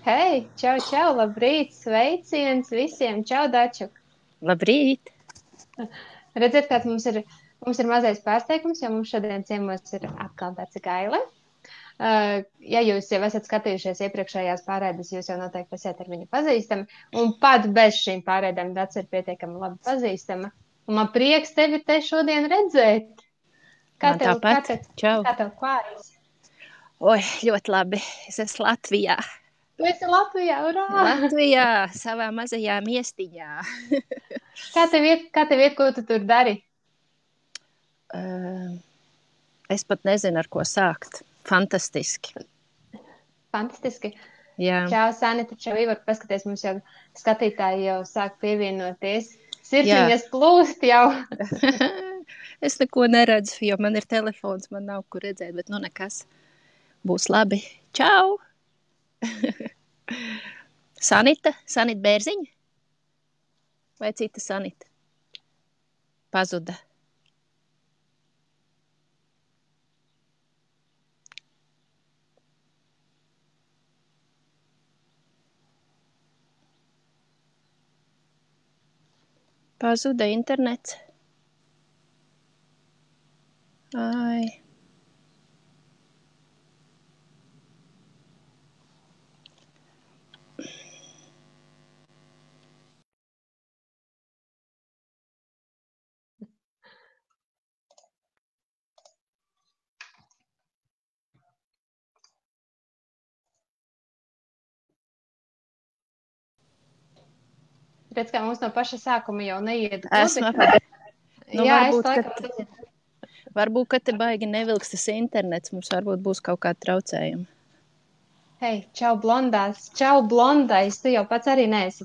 Hei, čau, čau, labrīt, sveiciens visiem, čau, Dačuk. Labrīt! Redziet, kāds mums ir mazais pārsteigums, jo mums šodien ciemos ir atkal Dace Gaile. Ja jūs jau esat skatījušies iepriekšējās pārēdes, jūs jau noteikti esat ar viņu pazīstami, un pat bez šīm pārēdēm Dace ir pietiekami labi pazīstama. Un man prieks tevi te šodien redzēt. Kā Man tev, kā tāpat. tev, Čau! kā tev klājas? Oi, ļoti labi. Es esmu Latvijā. Tu esi Latvijā, urā! Latvijā, savā mazajā miestiņā. Kā tev iet, ko tu tur dari? Es pat nezinu, ar ko sākt. Fantastiski. Fantastiski. Jā. Čau, Sanita, čau, Ivar, paskaties, mums jau skatītāji jau sāk pievienoties. Sirsniņas plūst jau. Es neko neredzu, jo man ir telefons, man nav kur redzēt, bet nu nekas. Būs labi. Čau! Sanita Bērziņa? Vai cita Sanita? Pazuda. Pazuda internets. Ai. Redz, kā mums no paša sākuma jau neiet Esmu. Nu, Jā, varbūt, ka te baigi nevilks tas internets, mums varbūt būs kaut kāda traucējuma. Hei, čau, blondais, tu jau pats arī neesi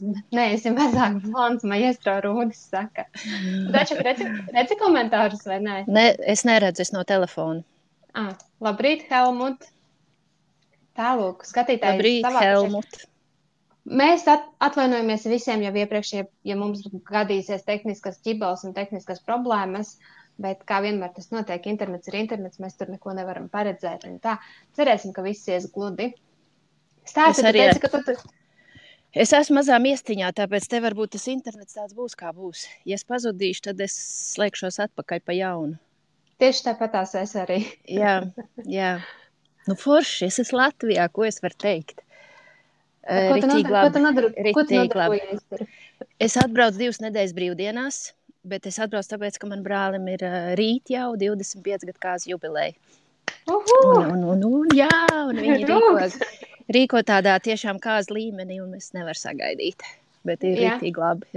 mazāk blonds, maestro Rūdis saka. Daču, redzi komentārus vai nē? Ne, es neredzu, es no telefona. Labrīt, Helmut. Tālūk, skatītājs. Labrīt, Helmut. Mēs atvainojamies visiem jau iepriekš, ja mums gadīsies tehniskas ķibels un tehniskas problēmas, bet kā vienmēr tas notiek, internets ir internets, mēs tur neko nevaram paredzēt. Un tā, cerēsim, ka viss ies gludi. Stāsti, tu teici, ka tu... Es esmu mazā miestiņā, tāpēc te varbūt tas internets tāds būs, kā būs. Ja es pazudīšu, tad es slēgšos atpakaļ pa jaunu. Tieši tāpatās es arī. Jā. Nu forši, es esmu Latvijā, ko es varu teikt? Ko tu nodarbojies tur? Es atbraucu 2 nedēļas brīvdienās, bet es atbraucu tāpēc, ka man brālim ir rīt jau 25 gadu kāzu jubileja. Un viņi rīko tādā tiešām kāzu līmenī, un es nevaru sagaidīt. Bet ir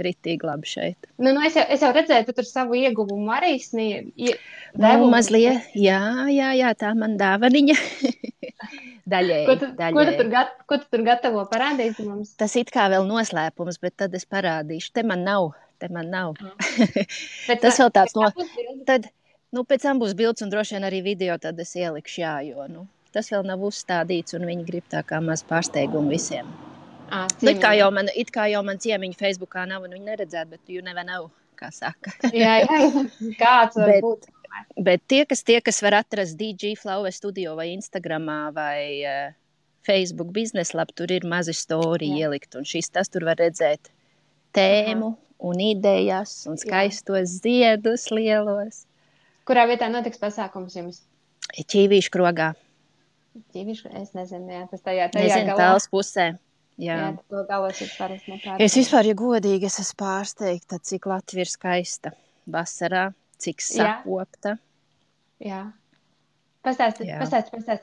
ritīgi labi šeit. Nu, es jau redzēju, tu tur savu ieguvumu arī sniedzi. Mazliet, jā, tā man dāvaniņa. Daļēji. Ko tu tur gatavo parādīt mums? Tas it kā vēl noslēpums, bet tad es parādīšu. Te man nav. Tas vēl tāds Tad, pēc tam būs bilds un droši vien arī video, tad es ielikšu, jo, tas vēl nav uzstādīts un viņi grib tā kā maz pārsteigumu visiem. It kā jau man ciemiņu Facebookā nav un viņi neredzētu, bet you never know, kā saka. Jā, kāds var būt. Bet tie, kas var atrast DJ Flower Studio vai Instagramā vai Facebook bizneslab, tur ir mazi story ielikt, un tas tur var redzēt tēmu un idejas un skaistos ziedus lielos. Kurā vietā notiks pasākums jums? Ķīvīšu krogā. Es nezinu, tas tajā galā. Tāls pusē. Jā, to galos ir parasti nepārsteigts. Es vispār, ja godīgi, es esmu pārsteigta, cik Latvija ir skaista vasarā, cik sakopta. Jā. Pastāsti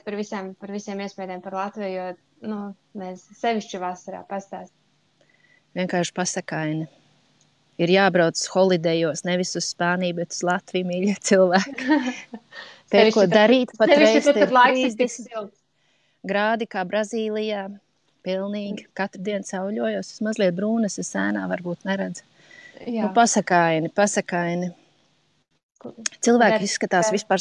par visiem iespējām par Latviju, jo, sevišķi vasarā pastāsti. Vienkārši pasakaini. Ir jābrauc holidejos, nevis uz Spāniju, bet uz Latviju, mīļie cilvēki. Pēc ko darīt, patreiz ir 30 grādi kā Brazīlijā. Pilnīgi. Katru dienu sauļojos, es mazliet brūnas, es ēnā varbūt neredzu. Pasakaini. Cilvēki izskatās vispār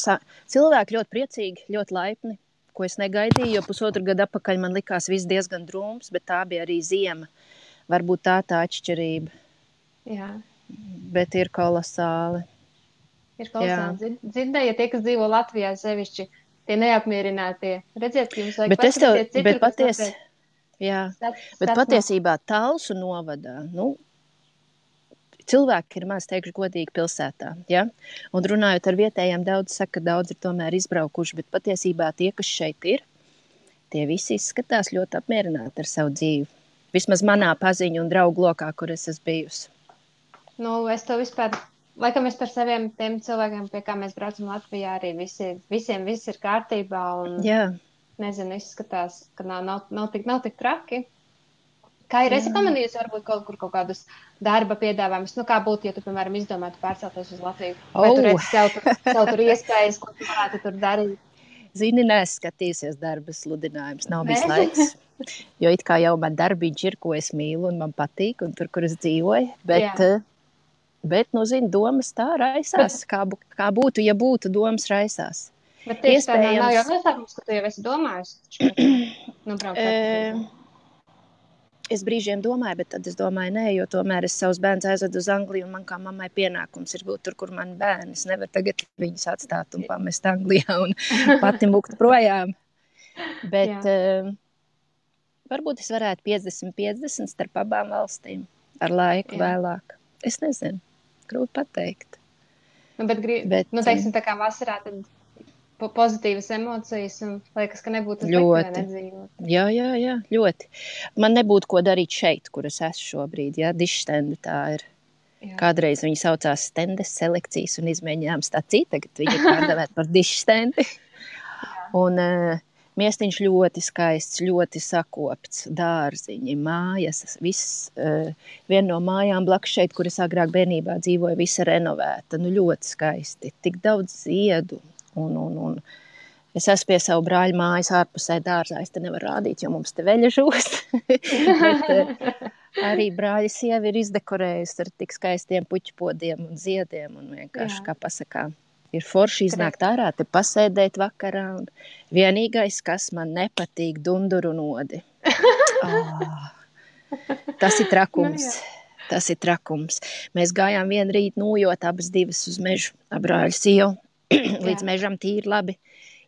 cilvēki ļoti priecīgi, ļoti laipni, ko es negaidīju, jo 1,5 gadu atpakaļ man likās viss diezgan drūms, bet tā bija arī ziema. Varbūt tā atšķirība. Jā. Bet ir kolosāli. Dzirdēja tie, kas dzīvo Latvijā sevišķi, tie neapmierinātie. Redziet, ka jums vajag paskatīties citur, bet Jā, bet patiesībā Talsu novadā, cilvēki ir maz, teikšu godīgi, pilsētā, ja? Un runājot ar vietējiem, daudz saka, ka daudz ir tomēr izbraukuši, bet patiesībā tie, kas šeit ir, tie visi izskatās ļoti apmierināti ar savu dzīvi. Vismaz manā paziņu un draugu lokā, kur es esmu bijusi. Es to vispār, laikam es par saviem tiem cilvēkiem, pie kā mēs braucam Latvijā, arī visiem viss ir kārtībā un, nezinu, izskatās, ka nav tik traki. Kā ir, esi pamanījusi varbūt kaut kādus darba piedāvājumus? Kā būtu, ja tu, piemēram, izdomātu pārcelties uz Latviju? Vai tu redzi sev tur iespējas, ko tu varētu tur darīt? Zini, neskatīsies darba sludinājumus, nav bijis laiks. Jo it kā jau man darbiņš ir, ko es mīlu un man patīk, un tur, kur es dzīvoju. Bet zini, domas tā raisās. Kā būtu, ja būtu, domas raisās. Bet tieši tā nav jau noslēpums, ka tu jau esi domājusi. Es brīžiem domāju, bet tad es domāju, nē, jo tomēr es savus bērnus aizvedu uz Angliju, un man kā mammai pienākums ir būt tur, kur mani bērni. Es nevaru tagad viņus atstāt un pamest Anglijā un pati mukt projām. Bet varbūt es varētu 50-50 starp abām valstīm ar laiku vēlāk. Es nezinu, grūti pateikt. Teiksim, tā kā vasarā tad pozitīvas emocijas un liekas, ka nebūtu slikti nedzīvot. Jā, ļoti. Man nebūtu ko darīt šeit, kur es esmu šobrīd, dišstendi tā ir. Jā. Kādreiz viņi saucās stendes selekcijas un izmēģinājām stāciju, tagad viņi ir pārdevēt par dišstendi. Un miestiņš ļoti skaists, ļoti sakopts, dārziņi, mājas, viss, viena no mājām blakus šeit, kur es agrāk bērnībā dzīvoju, visa renovēta, ļoti skaisti, tik daudz ziedu. Un es esmu pie savu brāļu mājas ārpusē dārzā. Es te nevaru rādīt, jo mums te veļa žūst. Bet arī brāļa sieva ir izdekorējusi ar tik skaistiem puķpodiem un ziediem. Un vienkārši, kā pasakā, ir forši iznākt ārā, te pasēdēt vakarā. Un vienīgais, kas man nepatīk, dunduru nodi. Tas ir trakums. Tas ir trakums. Mēs gājām vienu rītu nojot abas divas uz mežu ar brāļu sievu. Līdz mežam tīri labi.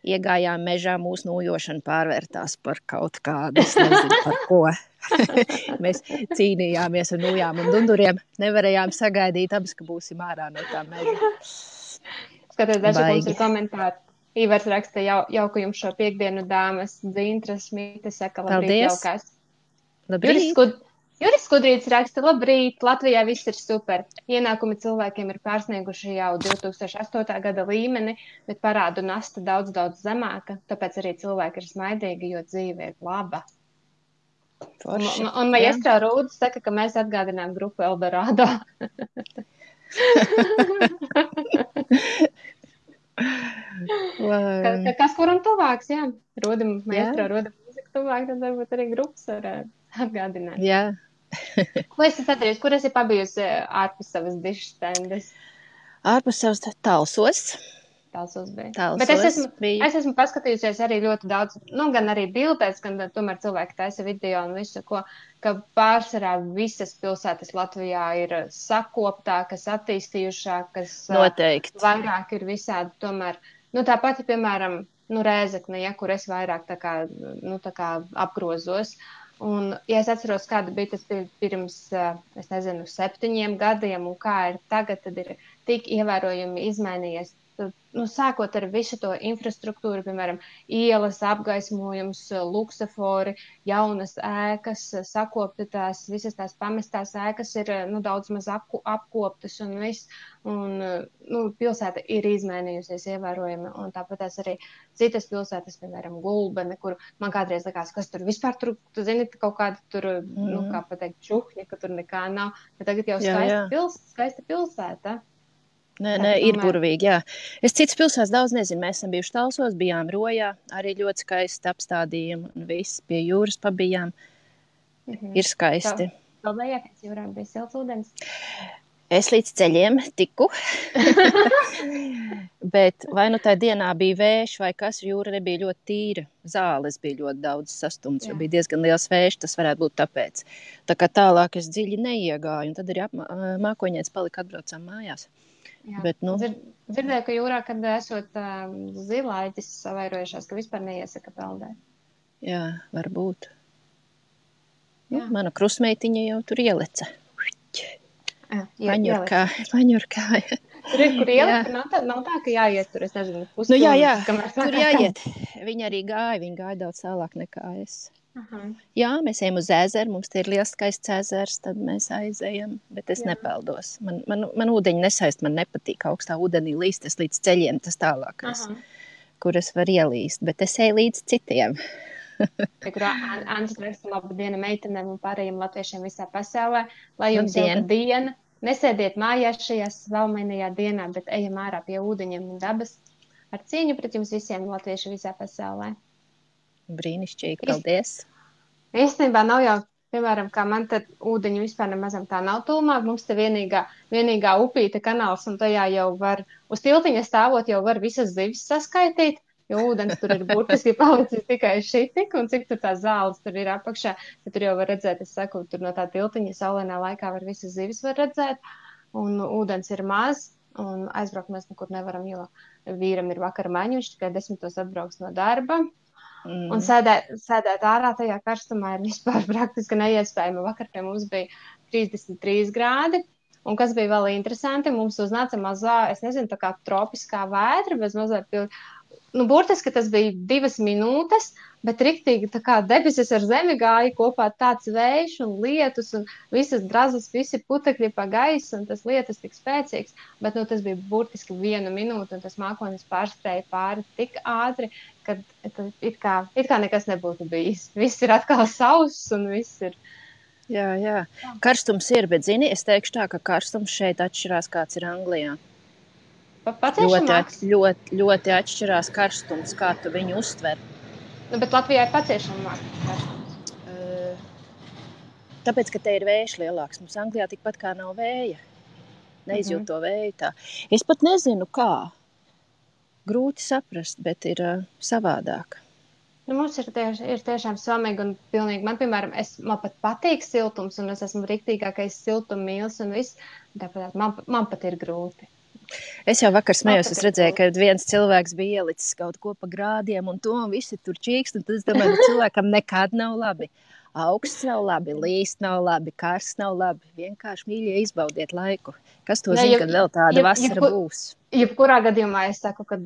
Iegājām mežā, mūsu nojošana pārvērtās par kaut kādu, es nezinu par ko. Mēs cīnījāmies un nojām un dunduriem. Nevarējām sagaidīt abas, ka būsim ārā no tā meža. Skaties, daži mums ir komentāri. Ivars raksta jauku jums šo piekdienu dāmas, Dzintras, Mīte saka, labrīt, jaukās. Labrīt. Juris Skudrīts raksta, labrīt, Latvijā viss ir super. Ienākumi cilvēkiem ir pārsnieguši jau 2008. gada līmeni, bet parādu nasta daudz zemāka, tāpēc arī cilvēki ir smaidīgi, jo dzīve ir laba. Un Maestro Rūdis saka, ka mēs atgādinām grupu Eldorado. Kas kuram tuvāks, jā. Maestro Rūdim mūzika tuvāk, tad varbūt arī grupas var atgādināt. Jā. Ko esi sadarījusi? Kur esi pabijusi ārpus savas dišstendes? Ārpus savas Talsos. Talsos bija. Bet es esmu paskatījusies arī ļoti daudz, gan arī bildēs, gan tomēr cilvēki taisa video un visu, ka pārsvarā visas pilsētas Latvijā ir sakoptākas, attīstījušākas. Noteikti. Vairāk ir visādi tomēr. Tā pati, piemēram, Rēzekne, kur es vairāk tā kā apgrozos. Un, ja es atceros, kāda bija tas pirms, 7 gadiem un kā ir tagad, tad ir tik ievērojami izmainījies. Sākot ar visu to infrastruktūru, piemēram, ielas, apgaismojums, luksafori, jaunas ēkas, sakoptas, visas tās pamestās ēkas ir daudz maz apkoptas un viss. Un pilsēta ir izmainījusies ievērojami. Un tāpat arī citas pilsētas, piemēram, Gulbene, kur man kādreiz likās, kas tur vispār tur, tu zini, kaut kāda tur, kā pateikt, čuhņa, ka tur nekā nav. Bet tagad jau skaista pilsēta. Nē, ir burvīgi, jā. Es citas pilsētas daudz nezinu. Mēs esam bijuši Talsos, bijām Rojā, arī ļoti skaisti apstādījumi un viss pie jūras pabijām. Ir skaisti. Kalbējā pēc jūrā bija silts ūdens? Es līdz ceļiem tiku. Bet vai tajā dienā bija vējš vai kas, jūra nebija ļoti tīra. Zāles bija ļoti daudz sastumts, jo bija diezgan liels vējš, tas varētu būt tāpēc. Tā kā tālāk es dziļi neiegāju, un tad arī mākoņiets palika atbraucām mājās. Bet, Dzirdēju, ka jūrā, kad esot zilaitis savairojušās, ka vispār neiesaka peldēt. Jā, varbūt. Mana krusmeitiņa jau tur ieleca. Paņurkāja. Tur ir, kur ielikt, nav tā, ka jāiet tur, es nezinu, pusstundu. Jā, tur jāiet. Viņa arī viņa gāja daudz tālāk nekā es. Jā, mēs ejam uz ezeru, mums te ir liels skaists ezers, tad mēs aizejam, bet es nepeldos. Man ūdeņi nesaist, man nepatīk augstā ūdenī līst, es līdz ceļiem tas tālākais, kur es varu ielīst, bet es eju līdz citiem. Kurā Ants raksta labu dienu meitenēm un pārējiem latviešiem visā pasaulē, lai jums jauka diena. Nesēdiet mājās šajā svalmainajā dienā, bet ejam ārā pie ūdeņiem un dabas ar cīņu pret jums visiem latvieši visā pasaulē. Brīnišķīgi, paldies. Īstenībā nav jau, piemēram, kā man tad ūdeņi vispār nemazam tā nav tūmā, mums te vienīgā upīte kanāls un tajā jau var, uz tiltiņa stāvot jau var visas zivis saskaitīt. Jo ūdens tur ir burtiski palicis tikai šitik, un cik tur tās zāles tur ir apakšā, tad tur jau var redzēt, es saku, tur no tā tiltiņa saulēnā laikā var visas zivis var redzēt, un ūdens ir maz, un aizbraukt mēs nekur nevaram, jo vīram ir vakara maiņa, viņš tikai 10 atbrauks no darba, un sēdēt ārā tajā karstumā ir vispār praktiski neiespējami. Vakar pie mums bija 33 grādi, un kas bija vēl interesanti, mums uznāca mazā, es nezinu, tā kā tropiskā vētra, bez mazā burtiski tas bija 2 minūtes, bet riktīgi tā kā debesis ar zemi gāja kopā tāds vējš un lietus un visas drazas, visi putekļi pa gaisu un tas lietus tik spēcīgs, bet tas bija burtiski 1 minūte un tas mākonis pārskrēja pāri tik ātri, ka it kā nekas nebūtu bijis. Viss ir atkal sauss un viss ir. Jā. Karstums ir, bet zini, es teikšu tā, ka karstums šeit atšķirās, kāds ir Anglijā. Ļoti atšķirās karstums, kā tu viņu uztver. Bet Latvijā ir paciešamāk karstums. Tāpēc, ka te ir vējš lielāks. Mums Anglijā tikpat kā nav vēja. Neizjūt to vēju tā. Es pat nezinu, kā. Grūti saprast, bet ir savādāk. Mums ir tiešām samīgi un pilnīgi. Man, piemēram, man pat patīk siltums un es esmu riktīgākais siltummīlis un viss. Tāpēc man pat ir grūti. Es jau vakar smējos, es redzēju, ka viens cilvēks bija ielicis kaut ko pa grādiem un to, un visi tur čīkst, un tad es domāju, ka cilvēkam nekad nav labi. Augsts nav labi, līst nav labi, karsts nav labi. Vienkārši mīļie izbaudiet laiku. Kas to zina, kad vēl tāda vasara būs? Jebkurā gadījumā es saku, ka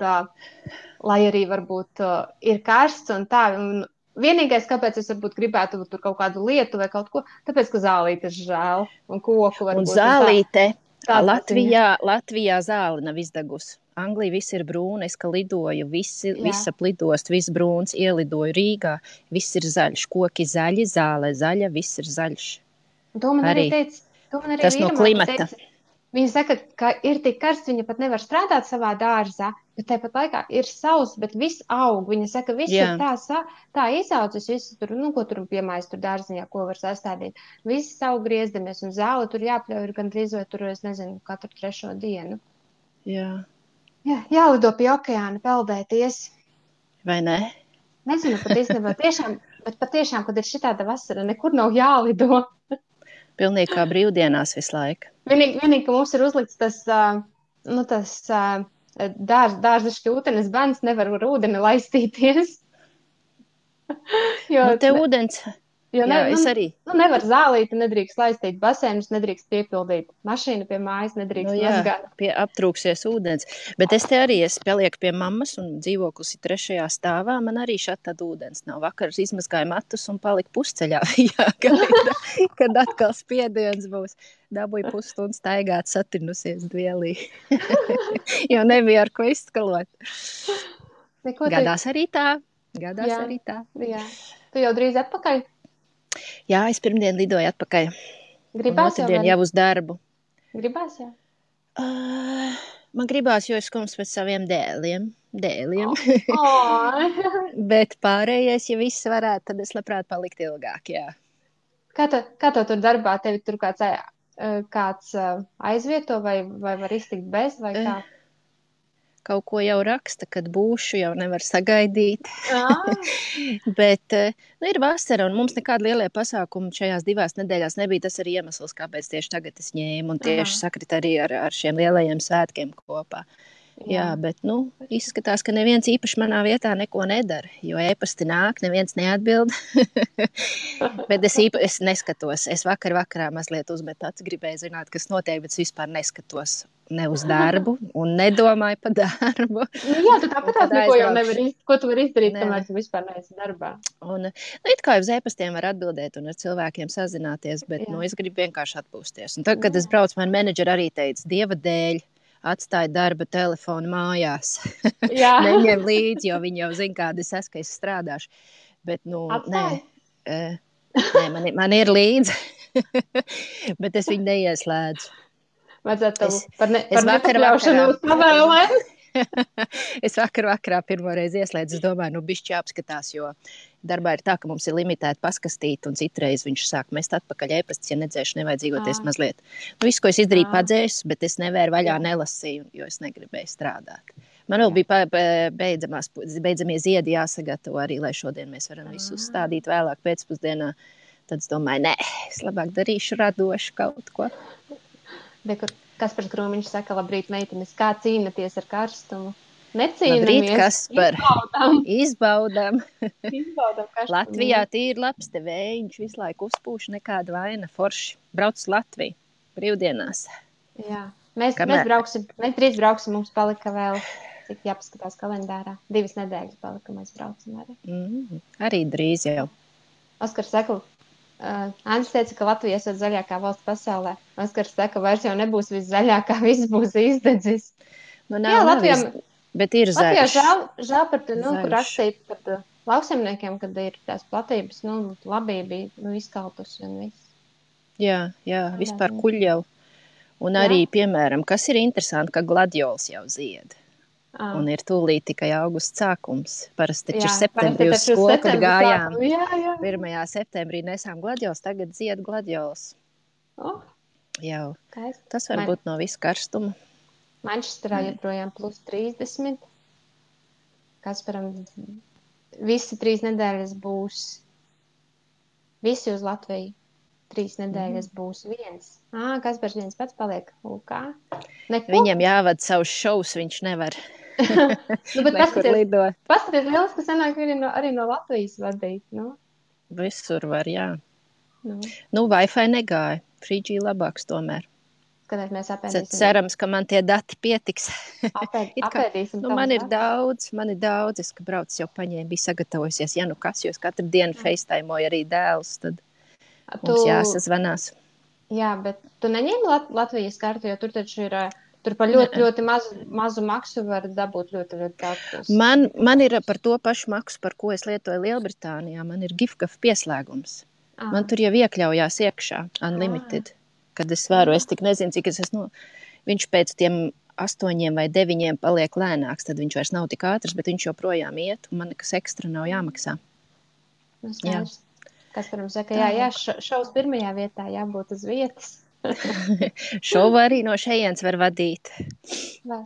lai arī varbūt ir karsts un tā, un vienīgais, kāpēc es varbūt gribētu tur kaut kādu lietu vai kaut ko, tāpēc, ka zālītes žēl un koku varbūt. Un zālīte. Latvijā zāle nav izdegusi. Anglija viss ir brūna, es ka lidoju, visa plidost, viss brūns, ielidoju Rīgā, viss ir zaļš, koki zaļi, zāle zaļa, viss ir zaļš. To man arī teica, tas no klimata. Viņa saka, ka ir tik karsts, viņa pat nevar strādāt savā dārzā, bet tāpat laikā ir sauss, bet viss aug. Viņa saka, viss ir tā izaudzis, viss tur, ko tur piemājas tur dārziņā, ko var sastādīt. Viss aug griezdamies un zāle tur jāpļauj gan drīz vai tur, es nezinu, katru 3. dienu. Jālido pie okeāna peldēties. Vai ne? Nezinu, pat īstenībā bet patiešām, kad ir šitāda vasara, nekur nav jālido. Pilnīgi kā brīvdienās visu laiku. Vienīgi, ka mums ir uzlikts tas dārza šķūtenes bans, nevar ar ūdeni laistīties. Te ūdens... es arī. Nevar zālīti, nedrīkst laistīt basēnus, nedrīkst piepildīt mašīnu pie mājas, nedrīkst mazgāt. Aptrūksies ūdens. Bet es palieku pie mammas un dzīvoklis ir 3. stāvā. Man arī šādi tad ūdens nav. Vakar izmazgāju matus un paliku pusceļā. Kad atkal spiediens būs. Dabūju pusstundu staigāt, satrinusies dvielī. Jo nebija ar ko izskalot. Gadās arī tā. Jā. Tu jau drīz atpakaļ? Jā, es pirmdien lidoju atpakaļ. Gribās jau uz darbu. Gribās jau? Man gribās, jo es skums pēc saviem dēliem. Oh. Bet pārējais, ja viss varētu, tad es labprāt palikt ilgāk, jā. Kā to tur darbā? Tevi tur kāds aizvieto vai var iztikt bez vai kā? Kaut ko jau raksta, kad būšu, jau nevar sagaidīt. Bet ir vasara, un mums nekāda lielie pasākumi šajās 2 nedēļās nebija. Tas arī iemesls, kāpēc tieši tagad es ņēmu, un tieši sakrit arī ar šiem lielajiem svētkiem kopā. Jā, bet, izskatās, ka neviens īpaši manā vietā neko nedara, jo e-pasti nāk, neviens neatbild. Bet es neskatos. Es vakarā mazliet uzmetu acis, gribēju zināt, kas notiek, bet es vispār neskatos ne uz darbu un nedomāju par darbu. Jā, tu tāpat neko jau nevari izdarīt. Ko tu vari izdarīt, kamēr tu vispār neesi darbā? Un, it kā uz e-pastiem var atbildēt un ar cilvēkiem sazināties, bet, es gribu vienkārši atpūsties. Un tad, kad es braucu, man menedžeri arī teica, Dieva dēļ, atstāja darba telefonu mājās. Neņem līdzi, jo viņi jau zina, kāda es esmu, ka es strādāšu. Bet, man ir līdzi, bet es viņu neieslēdzu. Vajadzētu par nepakļaušanos pavēlēm. Es vakarā pirmoreiz ieslēdzu, es domāju, bišķi jāapskatās, jo darbā ir tā, ka mums ir limitēta paskastīta, un citreiz viņš sāk mest atpakaļ e-pastus, ja nedzēšu nevajadzīgoties mazliet. Visu, ko es izdarīju, padzēsu, bet es nevēru vaļā nelasīju, jo es negribēju strādāt. Man vēl bija beidzamie ziedi jāsagatavo arī, lai šodien mēs varam visu uzstādīt vēlāk pēcpusdienā. Tad es domāju, nē, es labāk darīšu radošu kaut ko. Kaspars Krūmiņš saka, labrīt, meitenes, kā cīnaties ar karstumu? Necīnamies. Labrīt, Kaspar. Izbaudām. Latvijā tīri labs te vējiņš, visu laiku uzpūš, nekāda vaina, forši. Brauc uz Latviju, brīvdienās. Jā, mēs drīz brauksim, mums palika vēl, cik jāpaskatās kalendārā. 2 nedēļas palika, mēs braucam arī. Arī drīz jau. Oskars saka, Andris teica, ka Latvija esot zaļākā valsts pasaulē. Oskars saka, vairs jau nebūs viss zaļākā, viss būs izdedzis. Jā, Latvijā, bet ir zaļš. Latvijā žēl par to, kur rakstīt par lauksaimniekiem, kad ir tās platības, labība izkaltus un viss. Jā, vispār kuļļau. Un arī, piemēram, kas ir interesanti, ka gladiols jau zied. Un ir tūlīt tikai augusts sākums. Parasti taču ir septembrī uz skolu, kad gājām. 1. septembrī nesām gladiols, tagad zied gladiols. Jau. Tas var būt no visu karstuma. Manchesterā joprojām plus 30. Kasparam visi 3 nedēļas būs. Visi uz Latviju. 3 nedēļas būs viens. Kaspars viens pats paliek. Viņam jāvada savus šovus, viņš nevar. Paskaties, liels, ka sanāk arī no Latvijas vadīt. Visur var, jā. Wi-Fi negāja. 3G labāks tomēr. Kad mēs apēdīsim. Cerams, ka man tie dati pietiks. Apēdīsim. Man ir daudz. Es, ka brauc jau paņēmu, bija sagatavojusies. Ja kas, jo es katru dienu facetaimoju arī dēlus, tad mums jāsazvanās. Jā, bet tu neņēmi Latvijas kartu, jo tur taču ir... Tur par ļoti mazu maksu var dabūt ļoti daudz. Man ir par to pašu maksu, par ko es lietoju Lielbritānijā. Man ir Gifkaf pieslēgums. Man tur jau iekļaujās iekšā, unlimited. Kad es varu, es tik nezinu, cik es esmu. Viņš pēc tiem 8 vai 9 paliek lēnāks, tad viņš vairs nav tik ātrs, bet viņš joprojām iet, un man nekas ekstra nav jāmaksā. Kas par mums saka, šovs 1. vietā jābūt uz vietas. Šovu arī no šejienes var vadīt. Var.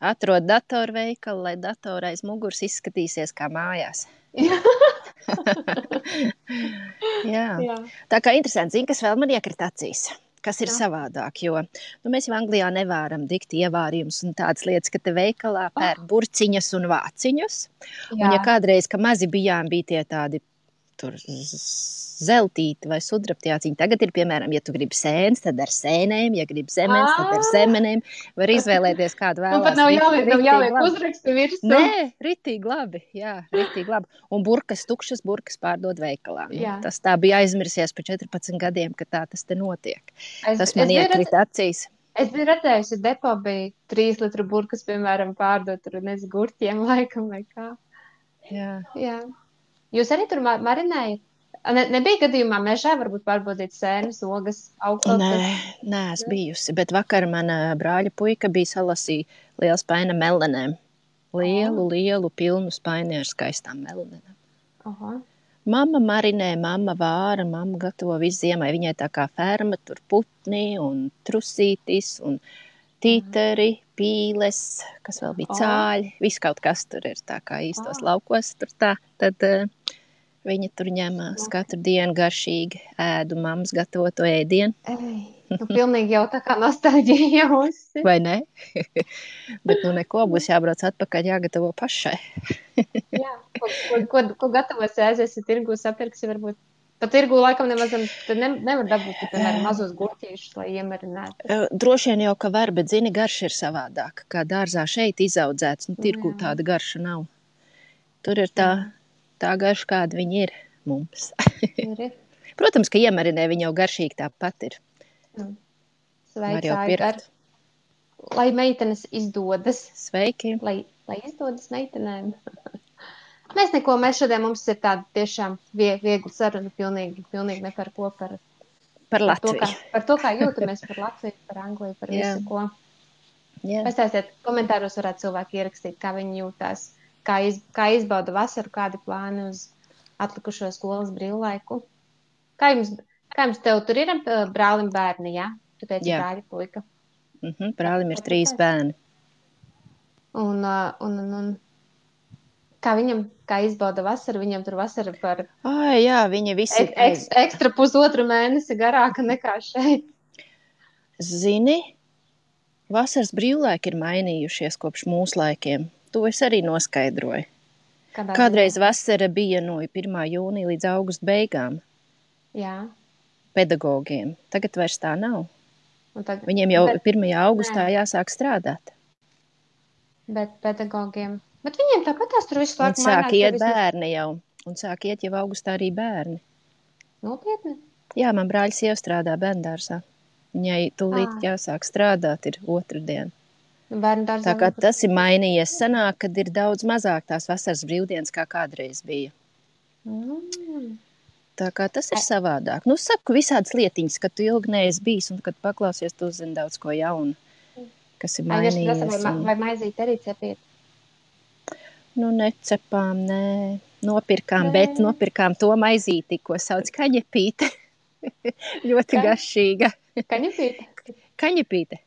Atrod datoru veikalu, lai datora aiz muguras izskatīsies kā mājās. Jā. Tā kā interesanti, zini, kas vēl man iekrita acīs, kas ir savādāk, jo mēs jau Anglijā nevaram dikt ievārījumus un tādas lietas, ka te veikalā pērk burciņas un vāciņus. Un ja kādreiz, ka mazi bijām, bija tie tādi tur zeltīti vai sudrabtjāciņi. Tagad ir, piemēram, ja tu gribi sēnes, tad ar sēnēm, ja gribi zemenes, tad ar zemenēm. Var izvēlēties kādu vēlās. Pat nav jāliek uzrakstu virsū. Nē, ritīgi labi, ritīgi labi. Un tukšas burkas pārdod veikalā. Tas tā bija aizmirsies pa 14 gadiem, ka tā tas te notiek. Tas man iekrita acīs. Es biju redzējusi, depo bija 3 litru burkas, piemēram, pārdot tur gurķiem laikam vai kā. Jā. Jūs arī tur marinējat? Nebija gadījumā mežā varbūt pārbaudīt sēnes, ogas, augstās? Nē, es bijusi, bet vakar mana brāļa puika bija salasīja lielu spaini melenēm. Lielu, pilnu spaini ar skaistām melenēm. Mamma marinē, mamma vāra, mamma gatavo visu ziemai. Viņai tā kā ferma, tur putni un trusītis un tīteri, pīles, kas vēl bija cāļi. Viss kaut kas tur ir tā kā īstos laukos tur tā. Tad viņa tur ņemās katru dienu garšīgi ēdu mammas gatavoto ēdienu. Pilnīgi jau tā kā nostalģija jūsi. Vai ne? Bet nu neko, būs jābrauc atpakaļ, jāgatavo pašai. Jā, ko gatavosi, aiziesi tirgu, sapirksi varbūt. Pa tirgu laikam nemaz nevar dabūt, piemēram, mazos gurķīšus, lai iemarinātu. Droši vien jau, ka var, bet zini, garša ir savādāka. Kā dārzā šeit izaudzēts, tirgu tāda garša nav. Tur ir tā garša, kāda viņi ir mums. Protams, ka iemarinē viņi jau garšīgi tāpat ir. Sveicāji gar. Lai meitenes izdodas. Sveiki. Lai izdodas meitenēm. Mēs šodien mums ir tāda tiešām viegla saruna, pilnīgi ne par ko, par Latviju. Par to, kā jūtamies par Latviju, par Angliju, par visu, ko. Pastāstiet, komentāros varētu cilvēki ierakstīt, kā viņi jūtās, kā izbauda vasaru, kādi plāni uz atlikušo skolas brīvlaiku. Kā jums tev tur ir brālim bērni, jā? Tu teici brāļi puika. Brālim ir 3 bērni. Un kā viņam, kā izbauda vasaru, viņam tur vasara par viņi visi ekstra 1,5 mēnesi garāka nekā šeit. Zini, vasaras brīvlaiki ir mainījušies kopš mūsu laikiem. To es arī noskaidroju. Kādreiz vasara bija no 1. jūnija līdz augusta beigām. Jā. Pedagogiem. Tagad vairs tā nav. Viņiem jau 1. augustā jāsāk strādāt. Bet pedagogiem... Bet viņiem tāpatās tur visu laiku mainās. Un sāk iet bērni jau. Un sāk iet jau augustā arī bērni. Nopietni? Jā, man brāļs jau strādā bērndārsā. Viņai tūlīt jāsāk strādāt, ir 2. diena. Bērndārsā. Tā kā tas ir mainījies. Sanāk, kad ir daudz mazāk tās vasaras brīvdienas, kā kādreiz bija. Tā kā tas ir savādāk. Nu, saku visādas lietiņas, kad tu ilgi neesi bijis un kad paklausies, tu uzzini daudz ko jaunu, kas ir mainījies. Vai maizīt arī cepīt? Nu, necepām, nē. Bet nopirkām to maizīti, ko sauc kaņepīte. Ļoti garšīga. Kaņepīte? Kaņepīte.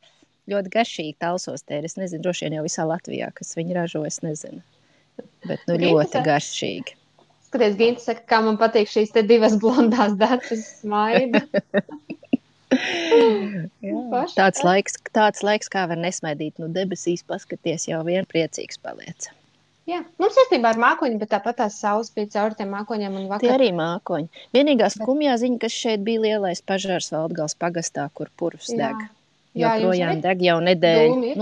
Ļoti garšīga talsostēra. Es nezinu, droši vien jau visā Latvijā, kas viņi ražo, es nezinu. Bet ļoti garšīgi. Skaties, Ginta saka, kā man patīk šīs te 2 blondās datas smaida. Tāds laiks, kā var nesmaidīt. Nu, debesīs paskaties, jau vien priecīgs paliec. Jā, mums saistībā ar mākoņu, bet tāpat tās saules bija cauri tiem mākoņiem un vakar. Tie arī mākoņi. Vienīgā skumjā ziņa, kas šeit bija lielais pažārs Valdgals pagastā, kur purvs deg. Joprojām deg jau nedēļu.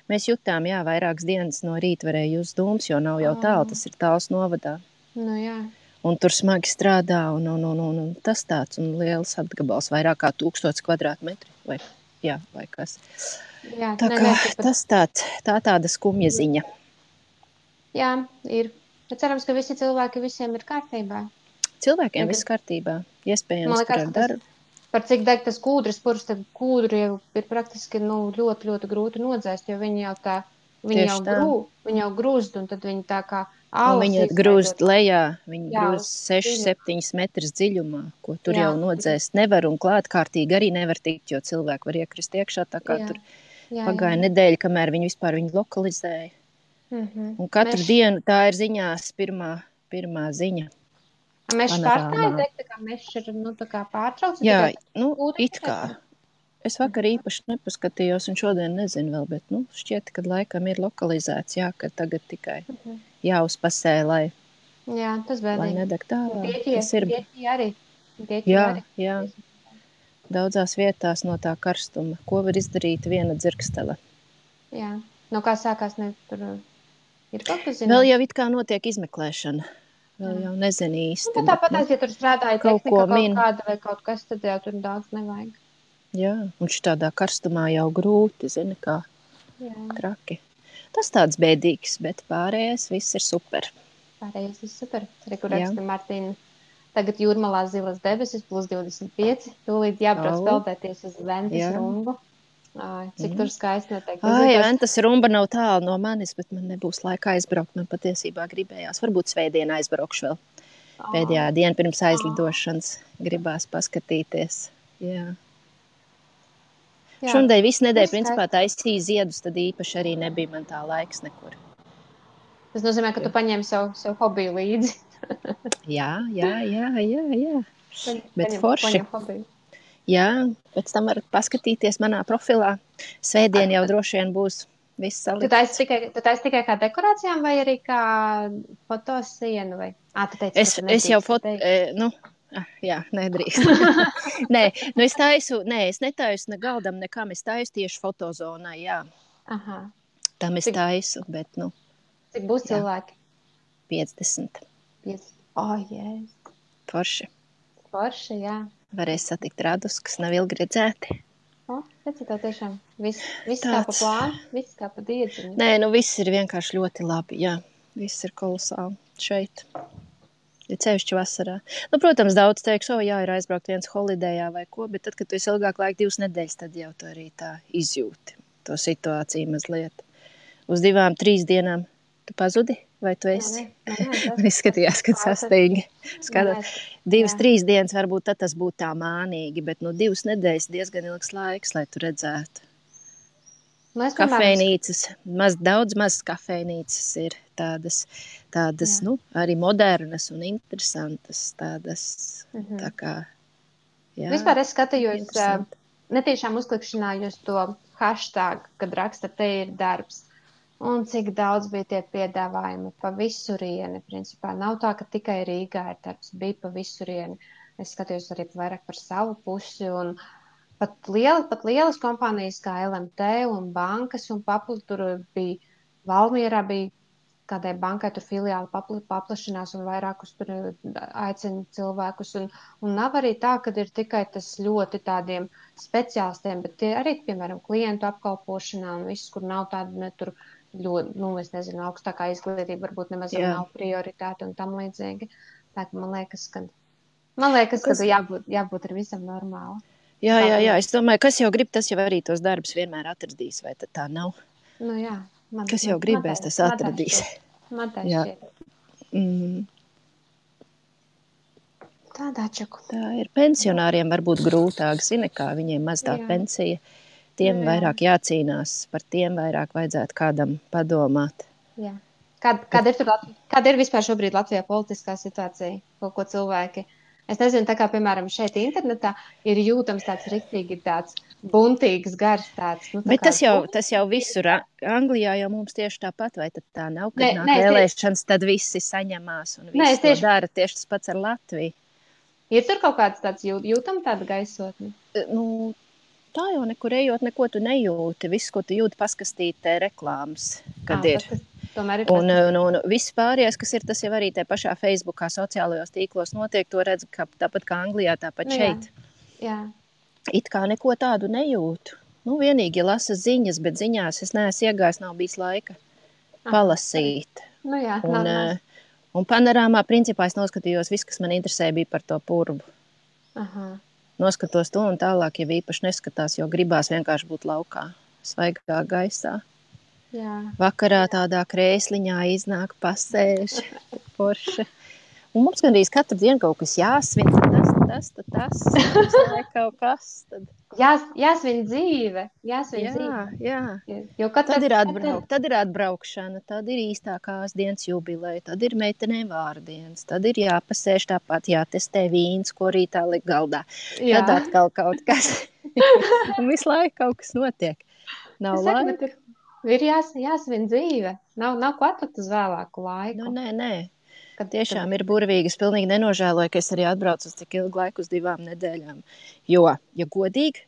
Mēs jutām, vairākas dienas no rīta varēja just dūmus, jo nav jau tālu, tas ir tāls novadā. Nu jā. Un tur smagi strādā un tas tāds un liels apgabals, vairāk kā 1000 kvadrātmetri vai kas. Jā, tā kā tas tāda skumja ziņa. Jā, ir. Bet cerams, ka visi cilvēki visiem ir kārtībā. Cilvēkiem viss kārtībā. Iespējams, tur ar darbu. Par cik deg tas kūdras purs, tad kūdru jau ir praktiski ļoti, ļoti grūti nodzēst, jo viņi jau grūst, un tad viņi tā kā ālas. Viņi grūst lejā, viņi grūst 6-7 metrus dziļumā, ko tur jau nodzēst nevar, un klātkārtīgi arī nevar tikt, jo cilvēki var iekrist iekšā, tā kā tur pagāja nedēļa, kamēr viņi vispār viņu lokalizēja. Un katru dienu tā ir ziņās pirmā ziņa. Mēs pārstāju teikt, tā kā mēs tā kā pārtraucam? Jā, it kā. Es vakar īpaši nepaskatījos un šodien nezinu vēl, bet šķiet, ka laikam ir lokalizēts, ka tagad tikai jāuzpasē, lai nedeg tālāk. Grieķija arī. Jā. Daudzās vietās no tā karstuma. Ko var izdarīt viena dzirkstele? Jā. No kā sākās tur ir kaut kas zināms? Vēl jau it kā notiek izmeklēšana. Vēl jau nezinu īsti. Tāpat, ja tur strādāja tehnika kaut kāda vai kaut kas, tad jau tur daudz nevajag. Jā, un šitādā karstumā jau grūti, zini, kā traki. Tas tāds bēdīgs, bet pārējais viss ir super. Arī, kur raksta Martīna. Tagad Jūrmalā zilas debesis, +25. Tūlīt jābrauc peldēties uz Ventas rumbu. Cik tur skaisti noteikti. Ventas rumba nav tālu no manis, bet man nebūs laika aizbraukt. Man patiesībā gribējās. Varbūt svētdien aizbraukšu vēl. Pēdējā diena pirms aizlidošanas gribās paskatīties. Jā. Šodien visu nedēļu principā taisīja ziedus, tad īpaši arī nebija man tā laiks nekur. Tas nozīmē, ka tu paņēmi savu hobiju līdzi. Jā. Bet forši. Jā, pēc tam varat paskatīties manā profilā. Svētdien jau droši vien būs viss salikts. Tu taisi tikai kā dekorācijām vai arī kā fotosienu? Vai? Tu teici, ka tu nedrīkst jā, nedrīkst. Nē, es netaisu ne galdam nekam, es taisu tieši fotozonai, jā. Aha. Tam es taisu, bet, Cik būs cilvēki? 50. Jēs. Forši, jā. Varēs satikt radus, kas nav ilgi redzēti. Redzi, tev tiešām viss kā pa plānu, viss kā pa diedziņu. Nē, viss ir vienkārši ļoti labi, jā. Viss ir kolosāli šeit. Ir cevišķi vasarā. Protams, daudz teiks, ir aizbraukt viens holidejā vai ko, bet tad, kad tu esi ilgāk laika 2 nedēļas, tad jau tu arī tā izjūti to situāciju mazliet. Uz 2-3 dienām tu pazudi, vai tu esi? Man izskatījās, kad sastīgi. 2-3 dienas varbūt tad tas būtu tā mānīgi, bet 2 nedēļas diezgan ilgs laiks, lai tu redzētu. Kafejnīcas, daudz mazas kafejnīcas ir tādas arī modernas un interesantas, tādas, tā kā, jā. Vispār es skatījos, netiešām uzklikšanājos to hashtag, kad raksta, te ir darbs. Un cik daudz bija tie piedāvājumi pa visurieni, principā. Nav tā, ka tikai Rīgā ir darbs, bija pa visurieni. Es skatījos arī vairāk par savu pusi un pat lielas kompānijas kā LMT un bankas un tur bija, Valmierā bija kādai bankai tur filiāli paplašinās un vairākus tur aicina cilvēkus. Un nav arī tā, ka ir tikai tas ļoti tādiem speciālistiem, bet tie arī, piemēram, klientu apkalpošanā un viss, kur nav tāda tur ļoti, es nezinu, augstākā izglītība varbūt nemaz nav prioritāte un tam līdzīgi. Tā ka man liekas, ka jābūt ar visam normāli. Jā, es domāju, kas jau grib, tas jau arī tos darbus vienmēr atradīs, vai tad tā nav? Jā. Kas jau gribēs, tas atradīs. Man tā šķiet. Tādā čaku. Tā ir pensionāriem varbūt grūtāk, zini, kā viņiem maz tā pensija. Tiem vairāk jācīnās, par tiem vairāk vajadzētu kādam padomāt. Jā. Kāda ir vispār šobrīd Latvijā politiskā situācija? Ko cilvēki? Es nezinu, tā kā, piemēram, šeit internetā ir jūtams tāds riktīgi tāds buntīgs gars tāds. Bet tas jau visur. Anglijā jau mums tieši tāpat, vai tad tā nav, kad nāk vēlēšanas, tad visi saņemās un visi to dara. Tieši tas pats ar Latviju. Ir tur kaut kāds tāds jūtam tāda gaisotne? Tā jau nekur ejot, neko tu nejūti. Viss, ko tu jūti, paskastītē reklāmas, kad ir. Un viss pārējais, kas ir, tas jau arī te pašā Facebookā, sociālajos tīklos notiek, to redz tāpat kā Anglijā, tāpat šeit. Jā. It kā neko tādu nejūtu. Vienīgi lasa ziņas, bet ziņās es neesmu iegājis, nav bijis laika palasīt. Un panorāmā principā es noskatījos, viss, kas man interesē, bija par to purvu. Noskatos to un tālāk, ja īpaši neskatās, jo gribās vienkārši būt laukā, svaigā gaisā. Jā. Vakarā tādā krēsliņā iznāk pasēž, forša. Un mums gandrīz katru dienu kaut kas jāsvin, tas, kaut kas. Jāsvin dzīve. Jā. Tad ir atbraukšana, tad ir īstākās dienas jubileja, tad ir meitenēm vārdienas, tad ir jāpasēž tāpat, jātestē vīns, ko rītā liek galdā. Jā. Tad atkal kaut kas. Un visu laiku kaut kas notiek. Nav laika. Ir jāsvin dzīve. Nav ko atlikt uz vēlāku laiku. Nē. Tiešām ir burvīgi. Es pilnīgi nenožēloju, ka es arī atbraucu uz tik ilgu laiku, uz 2 nedēļām. Jo, ja godīgi,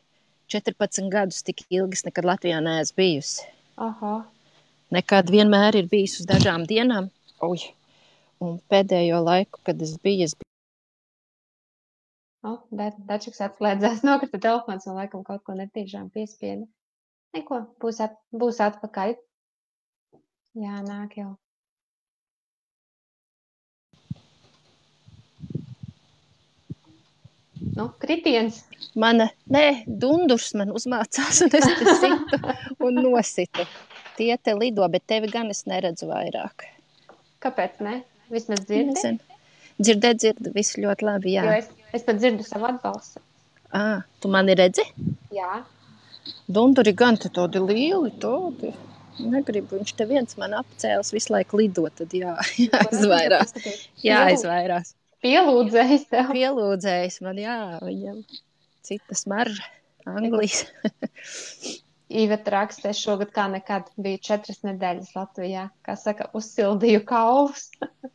14 gadus tik ilgi nekad Latvijā neesmu bijusi. Nekad vienmēr ir bijis uz dažām dienām. Un pēdējo laiku, kad es biju... Dačiks atslēdzās, nokrita telefons un laikam kaut ko netīšām piespieda. Neko, būs atpakaļ. Jā, nāk jau. Kritiens. Dundurs man uzmācās un es te situ un nositu. Tie te lido, bet tevi gan es neredzu vairāk. Kāpēc ne? Vismaz dzirdi? Dzirdu, viss ļoti labi, jā. Jo es pat dzirdu savu atbalstu. Tu mani redzi? Jā. Dunduri gan te tādi lieli, tādi. Negribu, viņš te viens man apcēlis visu laiku lido, tad jāizvairās. Pielūdzējis tev. Pielūdzējis man, jā, viņam. cita smarža, Anglijas. Iveta raksta, es šogad kā nekad biju 4 nedēļas Latvijā, kā saka, uzsildīju kaulus.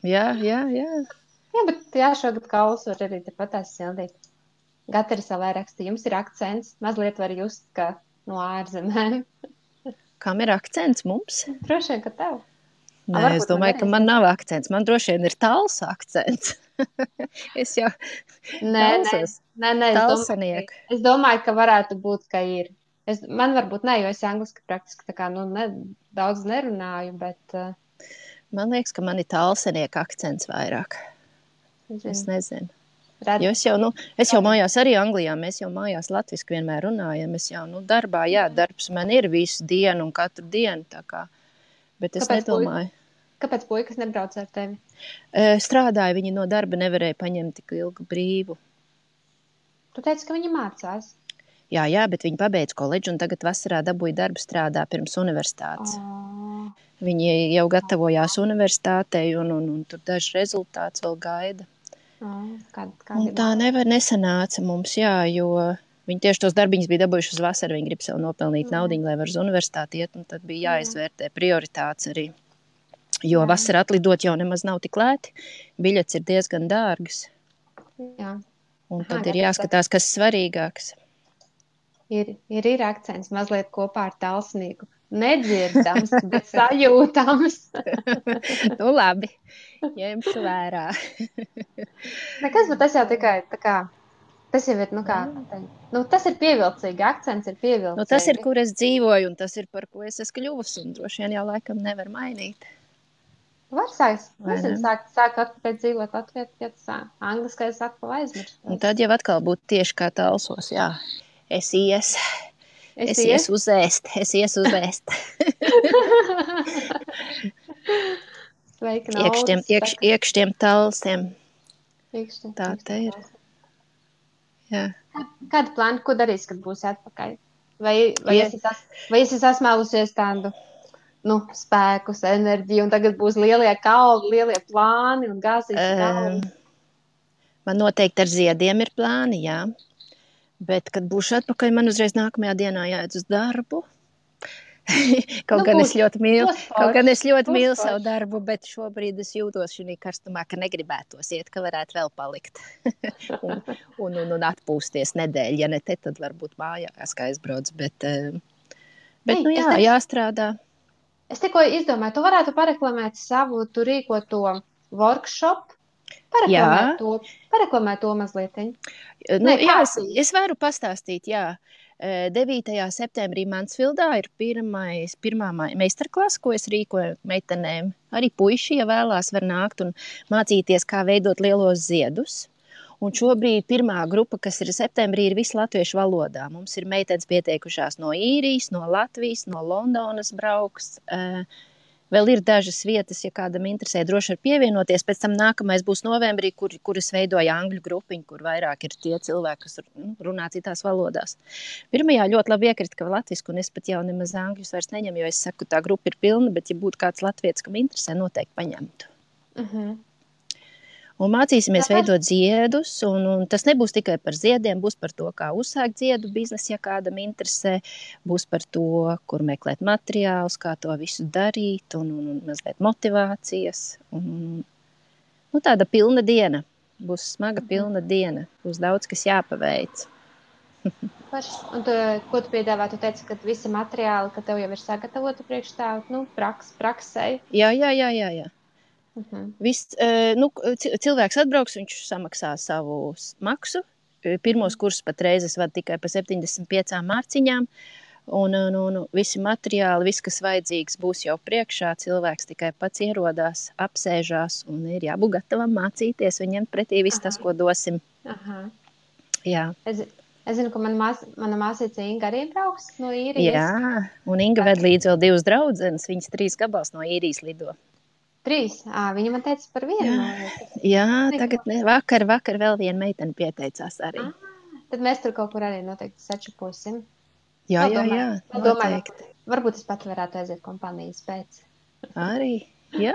Jā. Jā, bet šogad kaulus var arī tepatās sildīt. Gatari savai raksta, jums ir akcents, mazliet var just, ka no ārzemēm. Kam ir akcents mums? Droši vien, ka tev. Nē, es domāju, ka man nav akcents. Man droši vien ir tāls akcents. Es jau talsos. Nē, es domāju, ka varētu būt, ka ir. Man varbūt ne, jo es angliski praktiski tā kā, daudz nerunāju, bet... Man liekas, ka man ir talsenieka akcents vairāk. Es nezinu. Jo es jau mājās arī Anglijā, mēs jau mājās latviski vienmēr runājam. Es jau, darbā, darbs man ir visu dienu un katru dienu, tā kā. Bet es nedomāju. Kāpēc puikas nebrauc ar tevi? Strādāja, viņi no darba nevarēja paņemt tik ilgu brīvu. Tu teici, ka viņi mācās? Jā, bet viņi pabeidz koledžu un tagad vasarā dabūja darbu strādā pirms universitātes. Viņi jau gatavojās universitātei un tur daži rezultāts vēl gaida. Un tā nesanāca mums, jo viņi tieši tos darbiņus bija dabūjuši uz vasaru, viņi grib sev nopelnīt naudiņu, lai var uz universitāti iet, un tad bija jāizvērtē prioritātes arī. Jo vasarā atlidot jau nemaz nav tik lēti, biļets ir diezgan dārgas. Jā. Un tad ir jāskatās, kas svarīgāks. Ir akcents mazliet kopā ar talsnieku. Nedzirdams, bet sajūtams. Labi, ņemšu vērā. Nekas, bet tas jau tikai tā kā, tas jau ir, tas ir pievilcīgi, akcents ir pievilcīgi. Tas ir, kur es dzīvoju, un tas ir, par ko es esmu kļuvusi, un droši vien jau laikam nevar mainīt. Var sākt atpēc dzīvot Latvijā, ja tas angliskais atkal aizmirst. Un tad jau atkal būtu tieši kā talsos, jā. Es iesu uzēst. Sveiki, naudas. Iekšķiem talsiem. Tā te ir. Jā. Kāda plāna, ko darīs, kad būs atpakaļ? Vai esi sasmēlusies tādu, spēkus, enerģiju, un tagad būs lielie kalni, lielie plāni un gāzīs kalni? Man noteikti ar ziediem ir plāni, jā. Bet, kad būšu atpakaļ, man uzreiz nākamajā dienā jāiet uz darbu. Kaut gan es ļoti mīlu savu darbu, bet šobrīd es jūtos šī karstumā, ka negribētos iet, ka varētu vēl palikt. un atpūsties nedēļu. Ja ne te, tad varbūt mājās, kā aizbrauc. Bet jāstrādā. Es tikko izdomāju, tu varētu pareklamēt savu tu rīkoto workshop. Pareklamē to mazliet. Es varu pastāstīt, jā. 9. septembrī Mansfildā ir pirmā meistarklasa, ko es rīkoju meitenēm. Arī puiši, ja vēlās, var nākt un mācīties, kā veidot lielos ziedus. Un šobrīd pirmā grupa, kas ir septembrī, ir visu latviešu valodā. Mums ir meitenes pieteikušās no Īrijas, no Latvijas, no Londonas brauks. Vēl ir dažas vietas, ja kādam interesē, droši var pievienoties. Pēc tam nākamais būs novembrī, kuras veidoja angļu grupiņu, kur vairāk ir tie cilvēki, kas runā citās valodās. Pirmajā ļoti labi iekrita, ka latvisku, un es pat jau nemaz angļus vairs neņemu, jo es saku, tā grupa ir pilna, bet ja būtu kāds latvietis, kam interesē, noteikti paņemtu. Un mācīsimies veidot ziedus, un tas nebūs tikai par ziediem, būs par to, kā uzsākt ziedu biznesu, ja kādam interesē, būs par to, kur meklēt materiālus, kā to visu darīt, un mazliet motivācijas. Tāda pilna diena, būs smaga pilna diena, būs daudz, kas jāpaveic. Un ko tu piedāvā? Tu teici, ka visi materiāli, ka tev jau ir sagatavoti priekš tā, praksei? Jā. Cilvēks atbrauks, viņš samaksā savu maksu. Pirmos kursus pat reizes vada tikai pa 75 mārciņām. Un visi materiāli, viss, kas vajadzīgs, būs jau priekšā. Cilvēks tikai pats ierodās, apsēžās un ir jābūt gatavam mācīties. Viņam pretī viss tas, ko dosim. Jā. Es zinu, ka mana māsīca Inga arī brauks no Īrijas. Jā, un Inga ved līdz vēl 2 draudzenes. Viņas 3 gabals no Īrijas lido. 3? Viņa man teica par vienu. Jā, tagad vakar vēl viena meitene pieteicās arī. Tad mēs tur kaut kur arī noteikti sačaposim. Jā, noteikti. Varbūt es pat varētu aiziet kompānijas pēc. Arī, jā.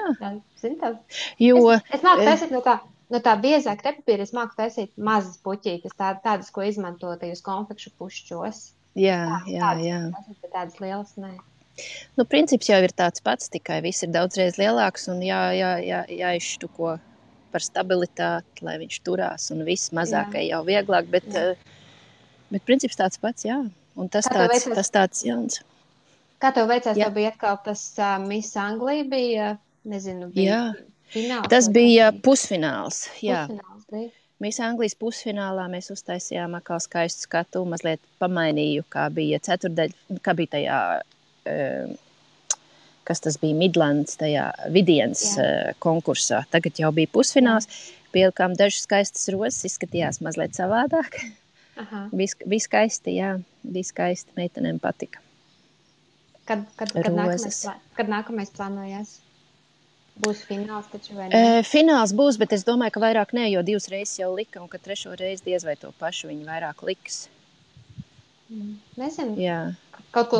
Zini tā? Es nāku taisīt no tā No tā biezā krepapīra es māku taisīt mazas puķītes, tādas, ko izmanto tajos konfekšu pušķos. Jā. Tādas, bet tādas lielas, nē. Nu, princips jau ir tāds pats, tikai viss ir daudzreiz lielāks un jāizštuko par stabilitāti, lai viņš turās, un viss mazākai jau vieglāk, bet princips tāds pats, jā. Un tas tāds jauns. Kā tev veicās? Tev bija atkal tas Miss Anglija bija, nezinu, bija fināls? Tas bija pusfināls, jā. Pusfināls bija. Miss Anglijas pusfinālā mēs uztaisījām atkal skaistu skatu, mazliet pamainīju, kā bija ceturdaļa, kā bija tajā, kas tas bija Midlands, tajā Vidienas konkursā. Tagad jau bija pusfināls, pielikām dažas skaistas rozes, izskatījās mazliet savādāk. Bija skaisti, jā, bija skaisti, meitenēm patika. Kad nākamais plānojas? Būs fināls taču vai ne? Fināls būs, bet es domāju, ka vairāk ne, jo 2 reizes jau lika, un ka 3. reizi diez vai to pašu viņi vairāk liks. Nezinu. Jā. Kaut ko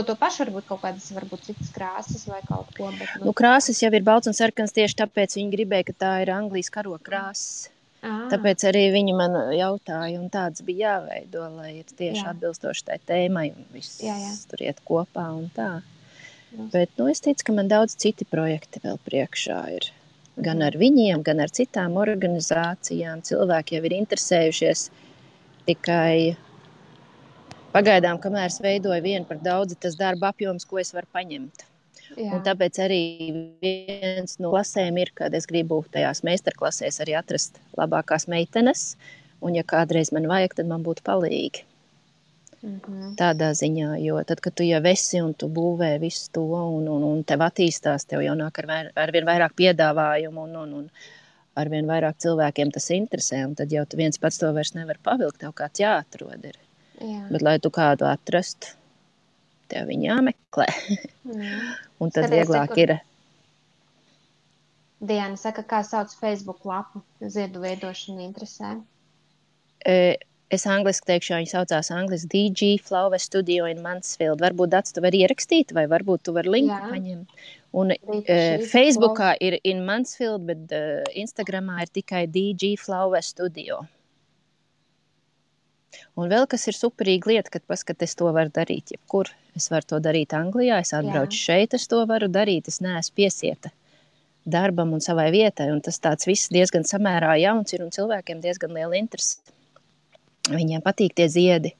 to pašu, varbūt kādas citas krāsas vai kaut ko. Bet, nu, krāsas jau ir balts un sarkans, tieši tāpēc viņi gribēja, ka tā ir Anglijas karoga krāsas. Tāpēc arī viņi man jautāja, un tāds bija jāveido, lai ir tieši atbilstoši tai tēmai, un viss tur iet kopā un tā. Bet, nu, es ticu, ka man daudz citi projekti vēl priekšā ir. Gan ar viņiem, gan ar citām organizācijām. Cilvēki jau ir interesējušies, tikai pagaidām, kamēr es veidoju vienu par daudzi, tas darba apjoms, ko es varu paņemt. Un tāpēc arī viens no klasēm ir, kad es gribu tajās meistarklasēs arī atrast labākās meitenes, un ja kādreiz man vajag, tad man būtu palīgi. Tādā ziņā, jo tad, kad tu jau esi un tu būvē visu to un tev attīstās, tev jau nāk arvien vairāk piedāvājumu un arvien vairāk cilvēkiem tas interesē, un tad jau tu viens pats to vairs nevar pavilkt, tev kāds jāatrod ir. Bet, lai tu kādu atrastu, tev viņi jāmeklē. Un tad vieglāk ir. Diana saka, kā sauc Facebook lapu, ziedu veidošana interesē. Es angliski teikšu, viņi saucās angliski DG Flower Studio in Mansfield. Varbūt Dats tu vari ierakstīt, vai varbūt tu vari linku paņemt. Un Facebookā ir in Mansfield, bet Instagramā ir tikai DG Flower Studio. Un vēl kas ir superīga lieta, kad paskat, es to varu darīt jebkur. Es varu to darīt Anglijā, es atbraucu šeit, es to varu darīt, es neesmu piesieta darbam un savai vietai. Un tas tāds viss diezgan samērā jauns ir un cilvēkiem diezgan liela interese. Viņiem patīk tie ziedi.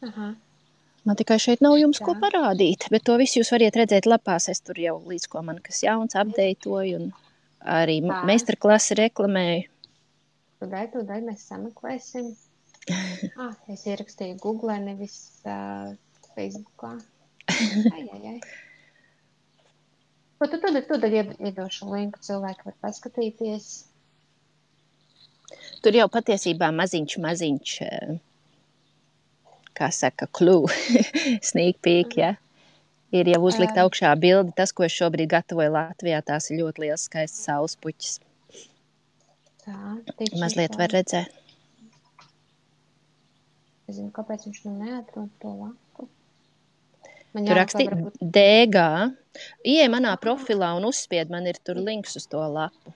Man tikai šeit nav jums ko parādīt, bet to visu jūs variet redzēt lapās. Es tur jau līdz ko man kas jauns apdeitoju un arī meistarklasi reklamēju. Tūdaļ mēs sameklēsim. Es ierakstīju Google, nevis Facebookā. Ai. Ko tu tūdaļ iedošu linku, cilvēki var paskatīties. Tur jau patiesībā maziņš, kā saka, clue, sneak peek, ja? Ir jau uzlikt augšā bildi. Tas, ko es šobrīd gatavoju Latvijā, tās ir ļoti liels skaists saulespuķis. Mazliet var redzēt. Es zinu, kāpēc viņš neatrod to lapu. Tur rakstīt DG. Ieej manā profilā un uzspied, man ir tur links uz to lapu.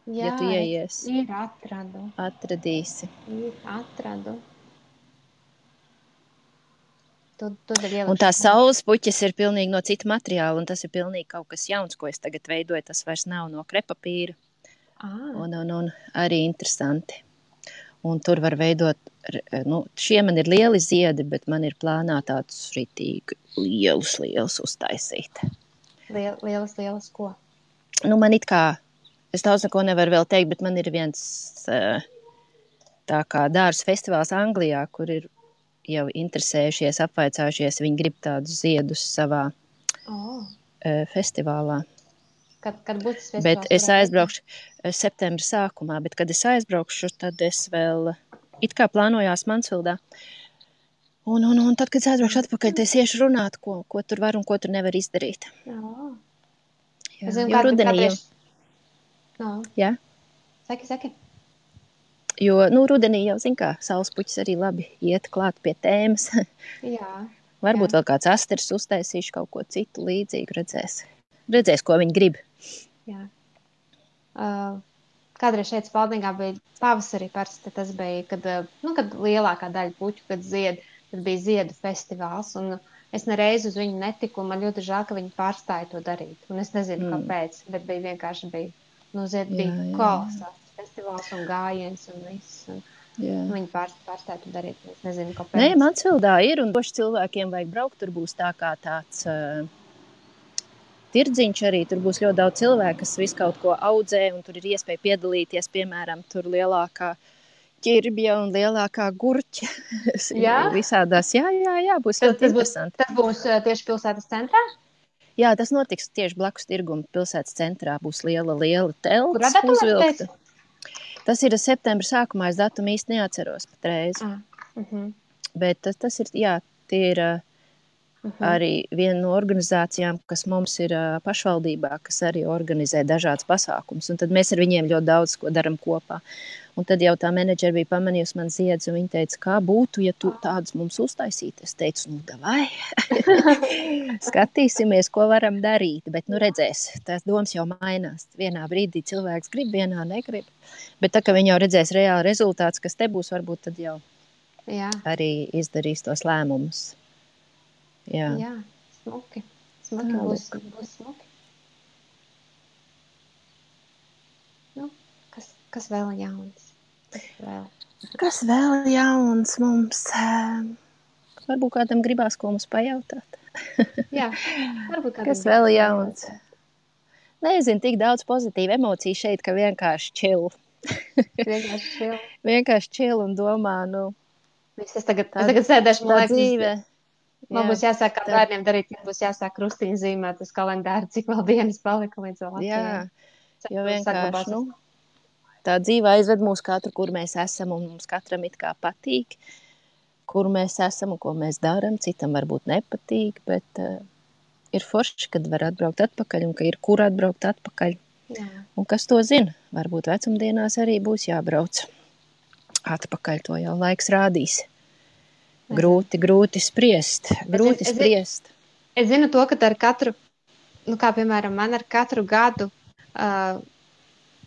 Jā, ja tu ieies. Ir atradu. Atradīsi. Atradu. Un tās saules puķis ir pilnīgi no cita materiāla, un tas ir pilnīgi kaut kas jauns, ko es tagad veidoju. Tas vairs nav no krepapīra. Un arī interesanti. Un tur var veidot, šie man ir lieli ziedi, bet man ir plānā tādus ritīgi lielus uztaisīt. Lielas ko? Man it kā, es daudz neko nevaru vēl teikt, bet man ir viens tā kā dārzu festivāls Anglijā, kur ir jau interesējušies, apvaicājušies, viņi grib tādus ziedus savā festivālā. Kad būs tas festivāls? Bet es aizbraukšu septembra sākumā, bet kad es aizbraukšu, tad es vēl it kā plānojās Mansfildā. Un tad, kad es aizbraukšu atpakaļ, tad es iešu runāt, ko tur var un ko tur nevar izdarīt. Jā, jo rudenī jau. Jā? Saki. Jo, rudenī jau, zin kā, saulespuķis arī labi iet klāt pie tēmas. Jā. Varbūt vēl kāds asters uztaisīšu kaut ko citu līdzīgu, redzēs, ko viņi grib. Jā. kādreiz šeit Spaldingā bija pavasarī parasti, tas bija, kad lielākā daļa puķu, kad bija ziedu festivāls, un es nereiz uz viņu netiku, un man ļoti žēl, ka viņi pārstāja to darīt, un es nezinu, kāpēc, bet bija kolosāls festivāls un gājiens un viss, un viņi pārstāja to darīt, es nezinu, kāpēc. Nē, Mansvildā ir, un doši cilvēkiem vajag braukt, tur būs tā kā tāds tirdziņš arī, tur būs ļoti daudz cilvēku, kas visu kaut ko audzē, un tur ir iespēja piedalīties, piemēram, tur lielākā ķirbja un lielākā gurķa. Visādās, jā, būs ļoti interesanti. Tas būs tieši pilsētas centrā? Jā, tas notiks tieši blakus tirguma pilsētas centrā. Būs liela telts. Kurā datumā uzvilkta? Tas ir septembra sākumā, es datumu īsti neatceros patreiz. Bet tas ir, jā, tie ir arī viena no organizācijām, kas mums ir pašvaldībā, kas arī organizē dažādas pasākumus. Un tad mēs ar viņiem ļoti daudz ko daram kopā. Un tad jau tā menedžera bija pamanījusi man ziedus, un viņa teica, kā būtu, ja tu tādus mums uztaisītu. Es teicu, davai, skatīsimies, ko varam darīt. Bet, redzēs, tās domas jau mainās. Vienā brīdī cilvēks grib, vienā negrib. Bet tā, ka viņi jau redzēs reāli rezultāts, kas te būs, varbūt tad jau arī izdarīs tos lēmumus. Jā, smuki. Būs smuki. Kas vēl jauns? Kas vēl jauns mums? Varbūt kādam gribās, ko mums pajautāt. Jā, varbūt kādam. Kas vēl jauns? Nezinu, tik daudz pozitīvu emociju šeit, ka vienkārši chill. Vienkārši chill un domā, Es tagad sēdēšu, man liekas, dzīve. Man būs jāsāk kā bērniem darīt, kad būs jāsāk krustiņu zīmēt uz kalendāru, cik vēl dienas palika līdz vēl Latvijai. Jā, jo vienkārši, tā dzīve aizved mūs katru, kur mēs esam, un mums katram it kā patīk, kur mēs esam un ko mēs daram. Citam varbūt nepatīk, bet ir forši, kad var atbraukt atpakaļ un ka ir kur atbraukt atpakaļ. Jā. Un kas to zina? Varbūt vecumdienās arī būs jābrauc atpakaļ, to jau laiks rādīs. Grūti spriest. Es zinu to, ka ar katru, kā piemēram man ar katru gadu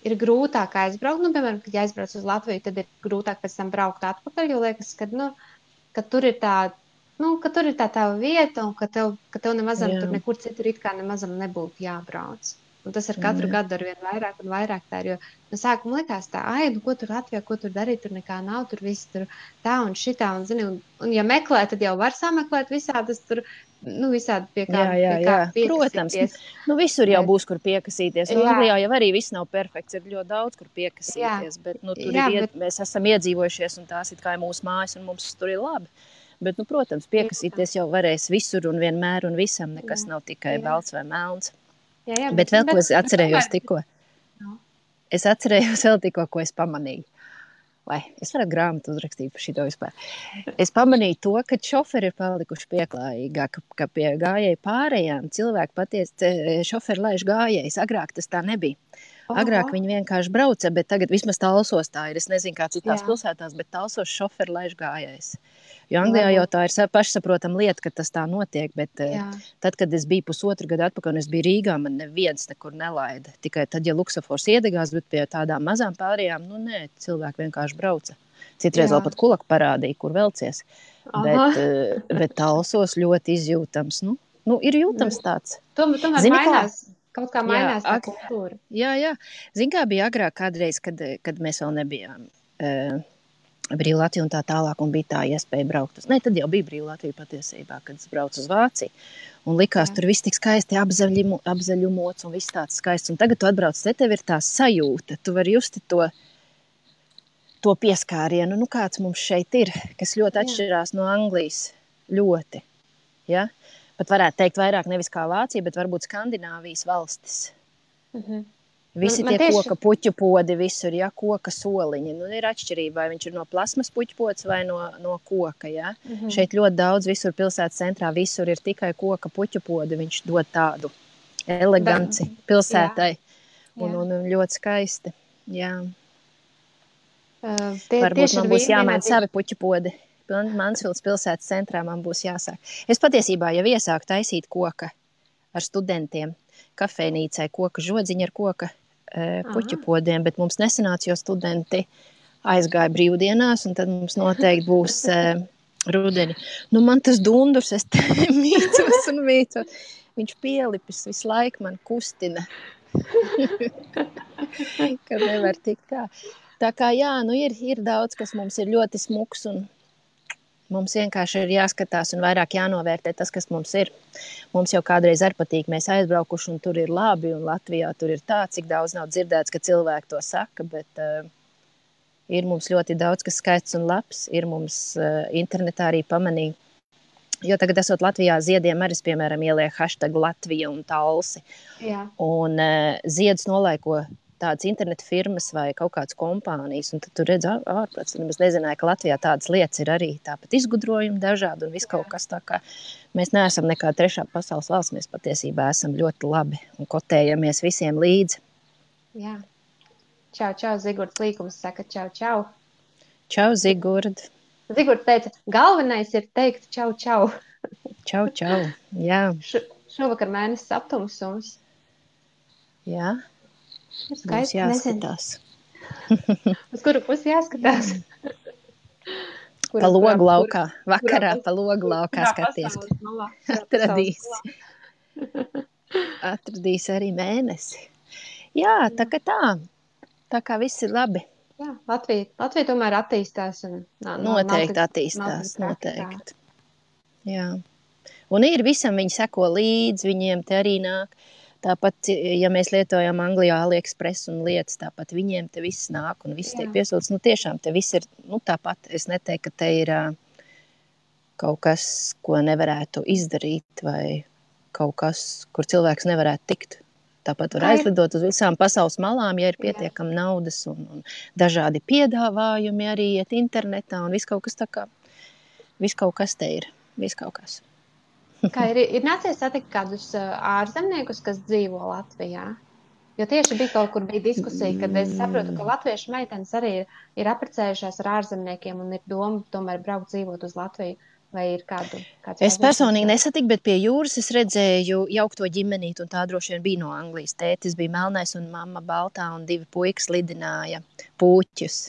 ir grūtāk aizbraukt. Piemēram, kad aizbrauc uz Latviju, tad ir grūtāk pēc tam braukt atpakaļ, jo liekas, ka tur ir tā tava vieta un ka tev nemazam tur nekur citur it kā nemazam nebūtu jābrauc. Un tas ar katru gadu ar vien vairāk un vairāk tā ir, jo no sākuma likās tā, ko tur Latvijā, ko tur darīt, tur nekā nav, tur viss tur tā un šitā, un zini, un ja meklē, tad jau var sameklēt visādas tur, visādi pie kā piekasīties. Protams, visur jau būs, kur piekasīties. Anglijā jau arī viss nav perfekts, ir ļoti daudz, kur piekasīties, bet mēs esam iedzīvojušies, un tās it kā ir mūsu mājas, un mums tur ir labi. Bet, protams, piekasīties jau varēs visur un vienmēr un visam, nekas nav tikai balts vai melns. Bet vēl, ko es atcerējos tikko. Es atcerējos vēl tikko, ko es pamanīju. Vai, es varētu grāmatu uzrakstīt par šito vispār. Es pamanīju to, ka šoferi ir palikuši pieklājīgāk, ka pie gājēju pārējām cilvēki patiesi šoferi laiž gājējus. Agrāk tas tā nebija. Agrāk viņi vienkārši brauca, bet tagad vismaz Talsos tā ir. Es nezinu, kā citās pilsētās, bet Talsos šoferi laiž gājējus. Jo Anglijā jau tā ir pašsaprotama lieta, ka tas tā notiek, bet tad, kad es biju pusotru gadu atpakaļ un es biju Rīgā, man neviens nekur nelaida. Tikai tad, ja luksafors iedegās, bet pie tādām mazām pārējām, cilvēki vienkārši brauca. Citreiz vēl pat kulaku parādīja, kur velcies. Bet Talsos ļoti izjūtams. Ir jūtams tāds. Tomēr mainās. Kaut kā mainās tā kultūra. Jā. Zini, kā bija agrāk kādreiz, kad mēs vēl nebijām Brīva Latvija un tā tālāk, un bija tā iespēja braukt uz. Tad jau bija Brīva Latvija patiesībā, kad es braucu uz Vāciju. Un likās, tur viss tik skaisti apzaļumots un viss tāds skaists. Un tagad tu atbrauc, tev ir tā sajūta. Tu vari justi to pieskārienu, kāds mums šeit ir, kas ļoti atšķirās no Anglijas. Ļoti. Ja? Pat varētu teikt vairāk nevis kā Vācija, bet varbūt Skandināvijas valstis. Visi tie koka puķu podi visur, koka soliņi. Ir atšķirība, vai viņš ir no plasmas puķu pods vai no koka. Ja? Šeit ļoti daudz, visur pilsētas centrā, visur ir tikai koka puķu podi. Viņš dod tādu eleganci pilsētai. Un ļoti skaisti. Jā. Varbūt man būs jāmaina savi puķu podi. Mansvildas pilsētas centrā man būs jāsāk. Es patiesībā jau iesāku taisīt koka ar studentiem. Kafejnīcai koka žodziņa ar koka puķu podiem, bet mums nesanāca, jo studenti aizgāja brīvdienās, un tad mums noteikti būs rudeni. Nu, man tas dundurs, es te mīcos un mīcos. Viņš pielipis visu laiku man kustina. Kad nevar tikt kā. Tā kā jā, nu ir daudz, kas mums ir ļoti smuks un mums vienkārši ir jāskatās un vairāk jānovērtē tas, kas mums ir. Mums jau kādreiz arī patīk, mēs aizbraukuši un tur ir labi un Latvijā tur ir tā, cik daudz nav dzirdēts, ka cilvēki to saka, bet ir mums ļoti daudz, kas skaists un labs, ir mums internetā arī pamanīja. Jo tagad esot Latvijā ziediem arī, piemēram, ieliek hashtag Latvija un Talsi. Jā. Un ziedus nolaiko tādas interneta firmas vai kaut kādas kompānijas, un tad tu redz ārprāts, un es nezināju, ka Latvijā tādas lietas ir arī tāpat izgudrojumi dažādi un viss kaut kas tā kā. Mēs neesam nekā trešā pasaules valsts, mēs patiesībā esam ļoti labi un kotējamies visiem līdzi. Jā. Čau, čau, Zigurds Līkums saka čau, čau. Čau, Zigurd. Zigurds teica, galvenais ir teikt čau, čau. Čau, čau, jā. Šovakar mēnesis aptumsums. Jā, mums jāskatās. Uz kuru pusi jāskatās? Pa logu laukā, vakarā pa logu laukā skaties. Atradīs arī mēnesi. Jā, tā kā viss ir labi. Jā, Latvija tomēr attīstās. Un, noteikti attīstās, noteikti. Jā. Un ir visam, viņi seko līdzi, viņiem te arī nāk. Tāpat, ja mēs lietojam Anglijā AliExpress un lietas, tāpat viņiem te viss nāk un viss tiek piesūts. Nu, tiešām te viss ir, tāpat. Es neteiktu, ka te ir kaut kas, ko nevarētu izdarīt vai kaut kas, kur cilvēks nevarētu tikt. Tāpat var aizlidot uz visām pasaules malām, ja ir pietiekami naudas un dažādi piedāvājumi arī iet internetā un viss kaut kas tā kā, viss kaut kas te ir, viss kaut kas. Kā ir nācies satikt kādus ārzemniekus, kas dzīvo Latvijā? Jo tieši bija diskusija, kad es saprotu, ka latviešu meitenes arī ir apprecējušās ar ārzemniekiem un ir doma tomēr braukt dzīvot uz Latviju. Vai ir kāds es personīgi nesatiku, bet pie jūras es redzēju jaukto ģimenīti, un tā droši vien bija no Anglijas. Tētis bija melnais un mamma baltā, un 2 puikas lidināja pūķus.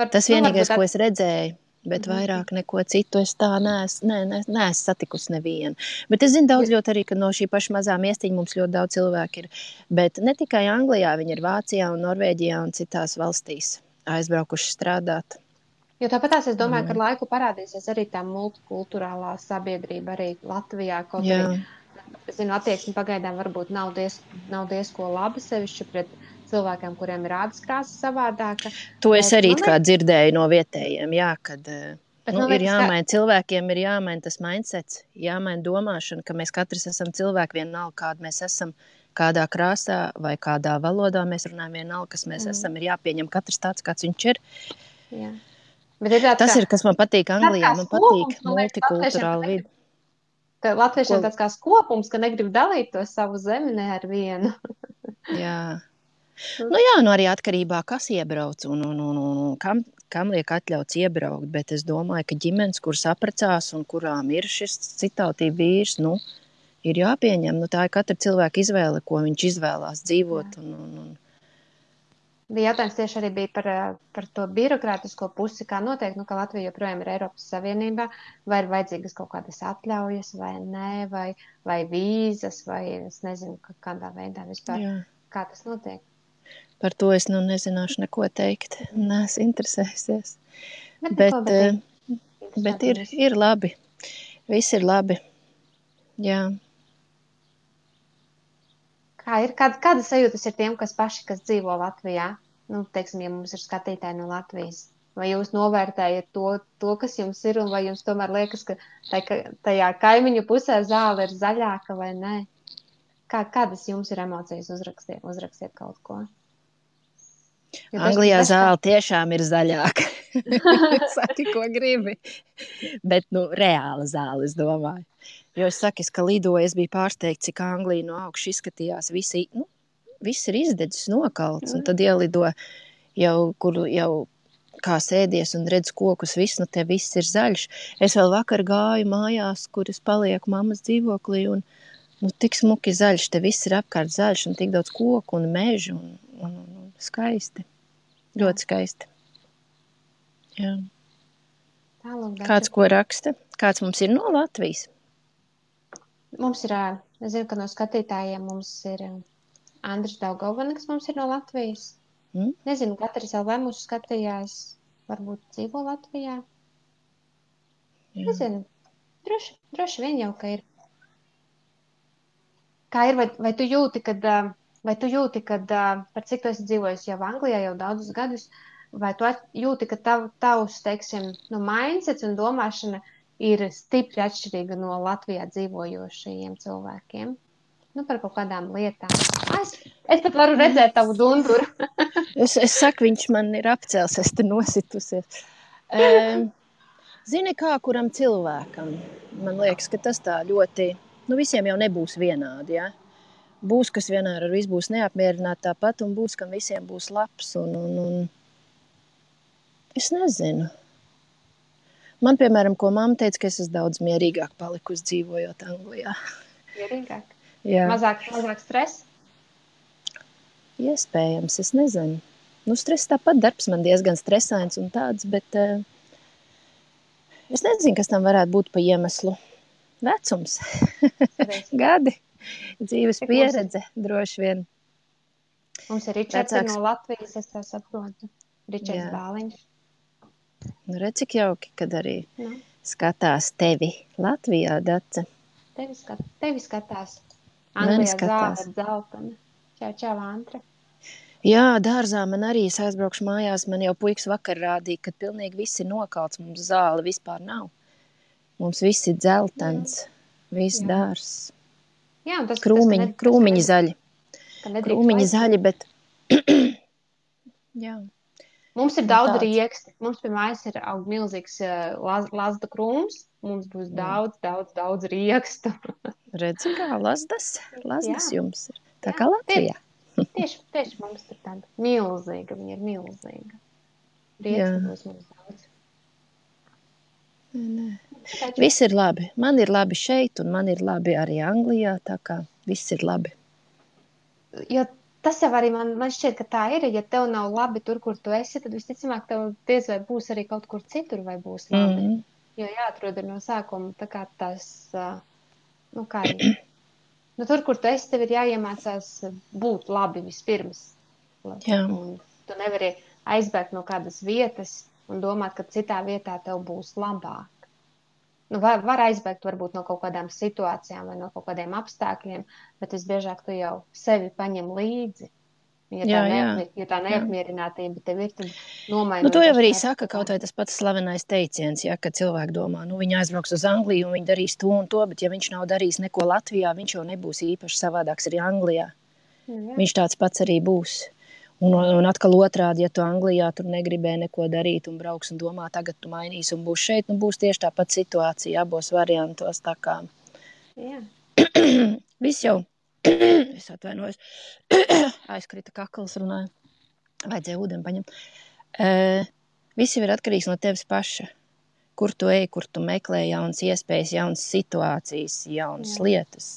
Tas vienīgais, ko es redzēju, bet vairāk neko citu es tā neesmu satikusi nevienu. Bet es zinu daudz ļoti arī, ka no šī paša mazā miestiņa mums ļoti daudz cilvēku ir. Bet ne tikai Anglijā, viņi ir Vācijā un Norvēģijā un citās valstīs aizbraukuši strādāt. Jo tāpatās es domāju, ka ar laiku parādīsies arī tā multikulturālā sabiedrība arī Latvijā. Kaut arī, es zinu, attieksme pagaidām varbūt nav diezko laba sevišķi pret cilvēkiem, kuriem ir ādas krāsa savādāka. To es arī kā dzirdēju no vietējiem, kad ir jāmaina, cilvēkiem ir jāmaina tas mindsets, jāmaina domāšana, ka mēs katrs esam cilvēki vienalga, kāda mēs esam, kādā krāsā vai kādā valodā mēs runājam vienalga, kas mēs esam, ir jāpieņem katrs tāds, kāds viņš ir. Jā. Tas ir, kas man patīk Anglijā, man patīk multikulturāla vidi. Latviešiem tāds kā skopums, ka negrib dalīt to savu zemi ne ar vienu. Jā. Arī atkarībā, kas iebrauc un kam liek atļauts iebraukt, bet es domāju, ka ģimenes, kuras apprecās un kurām ir šis citautība vīrs, ir jāpieņem. Tā ir katra cilvēka izvēle, ko viņš izvēlās dzīvot un Jautājums tieši arī bija par to birokrātisko pusi, kā noteikti, ka Latvija joprojām ir Eiropas Savienībā, vai ir vajadzīgas kaut kādas atļaujas, vai nē, vai vīzas, vai es nezinu, kādā veidā vispār, kā tas notiek. Par to es nezināšu neko teikt, neesmu interesējusies. Bet ir labi, viss ir labi, jā. Kāda sajūtas ir tiem, kas dzīvo Latvijā? Teiksim, ja mums ir skatītāji no Latvijas. Vai jūs novērtējat to, kas jums ir, un vai jums tomēr liekas, ka tajā kaimiņu pusē zāle ir zaļāka vai nē? Kādas jums ir emocijas? Uzrakstiet kaut ko. Anglijā zāle tiešām ir zaļāka. Saki, ko gribi. Bet, reāla zāle, es domāju. Jo es saku, ka lidoju, es biju pārsteigts, cik Anglija no augša izskatījās. Viss ir izdedzis, nokalts, un tad ielido kur kā sēdies un redz kokus, te viss ir zaļš. Es vēl vakar gāju mājās, kur es palieku mammas dzīvoklī, un tik smuki zaļš, te viss ir apkārt zaļš un tik daudz koku un mežu un skaisti. Ļoti skaisti. Jā. Tālāk, Kāds ko raksta? Kāds mums ir no Latvijas? Mums ir, es zinu, ka no skatītājiem mums ir Andris Daugavana, kas mums ir no Latvijas. Nezinu, katrs LV mūsu skatījās, varbūt dzīvo Latvijā. Jā. Nezinu, droši vien jau, ka ir. Kā ir, vai tu jūti, kad par cik tu esi dzīvojis jau Anglijā jau daudzus gadus, vai tu jūti, ka tavs, teiksim, mindsets un domāšana ir stipri atšķirīga no Latvijā dzīvojošajiem cilvēkiem? Par kaut kādām lietām. Es pat varu redzēt tavu dunduru. es saku, viņš man ir apcēls, es te nositusies. Zini, kā kuram cilvēkam? Man liekas, ka tas tā ļoti, visiem jau nebūs vienādi, ja? Būs, kas vienmēr ar visu būs neapmierināti tāpat, un būs, kam visiem būs labs, un es nezinu. Man, piemēram, ko mamma teica, ka es esmu daudz mierīgāk palikusi dzīvojot Anglijā. Mierīgāk? Jā. Mazāk stress? Iespējams, es nezinu. Stress tāpat, darbs man diezgan stresains un tāds, bet es nezinu, kas tam varētu būt pa iemeslu. Vecums, gadi, dzīves pieredze, droši vien. Mums ir Ričards no Latvijas, es tā saprotu. Ričards Bāliņš. Redz, cik jauki, kad arī skatās tevi Latvijā, Dace. Tevi skatās. Anglijā zāle dzeltena. Čau, Antra. Jā, dārzā man arī, es aizbraukšu mājās, man jau puikas vakar rādīja, ka pilnīgi viss ir nokalts, mums zāle vispār nav. Mums viss ir dzeltens, viss dārs. Jā, un tas krūmiņi zaļi. Krūmiņi zaļi, bet jā. Mums ir daudz rieksti. Mums pie mājas ir aug milzīgs lazda krūms. Mums būs daudz riekstu. Redzi, kā lazdas jums ir. Tā kā Latvijā. Tieši mums ir tāda milzīga. Viņa ir milzīga. Rieksti būs mums daudz. Viss ir labi. Man ir labi šeit un man ir labi arī Anglijā. Tā kā viss ir labi. Jo tas jau arī man šķiet, ka tā ir. Ja tev nav labi tur, kur tu esi, tad visticamāk tev diez vai būs arī kaut kur citur vai būs labi. Jo jāatrod no sākuma tā kā tas, tur, kur tu esi, tev ir jāiemācās būt labi vispirms. Un tu nevari aizbēgt no kādas vietas un domāt, ka citā vietā tev būs labāk. Var aizbēgt varbūt no kaut kādām situācijām vai no kaut kādiem apstākļiem, bet visbiežāk tu jau sevi paņem līdzi. Ja tā neapmierinātība tev ir, tad nomainot. To jau arī saka kaut vai tas pats slavenais teiciens, ja, kad cilvēki domā, viņi aizbrauks uz Angliju un viņi darīs to un to, bet ja viņš nav darījis neko Latvijā, viņš jau nebūs īpaši savādāks arī Anglijā. Viņš tāds pats arī būs. Un atkal otrādi, ja tu Anglijā tur negribēji neko darīt un brauks un domā, tagad tu mainīsi un būs šeit, būs tieši tāpat situācija abos variantos. Tā kā viss jau, es atvainojos, aizkrita kakls runāju, vajadzēja ūdeni paņemt. Viss jau ir atkarīgs no tevis paša. Kur tu ej, kur tu meklē jaunas iespējas, jaunas situācijas, jaunas lietas.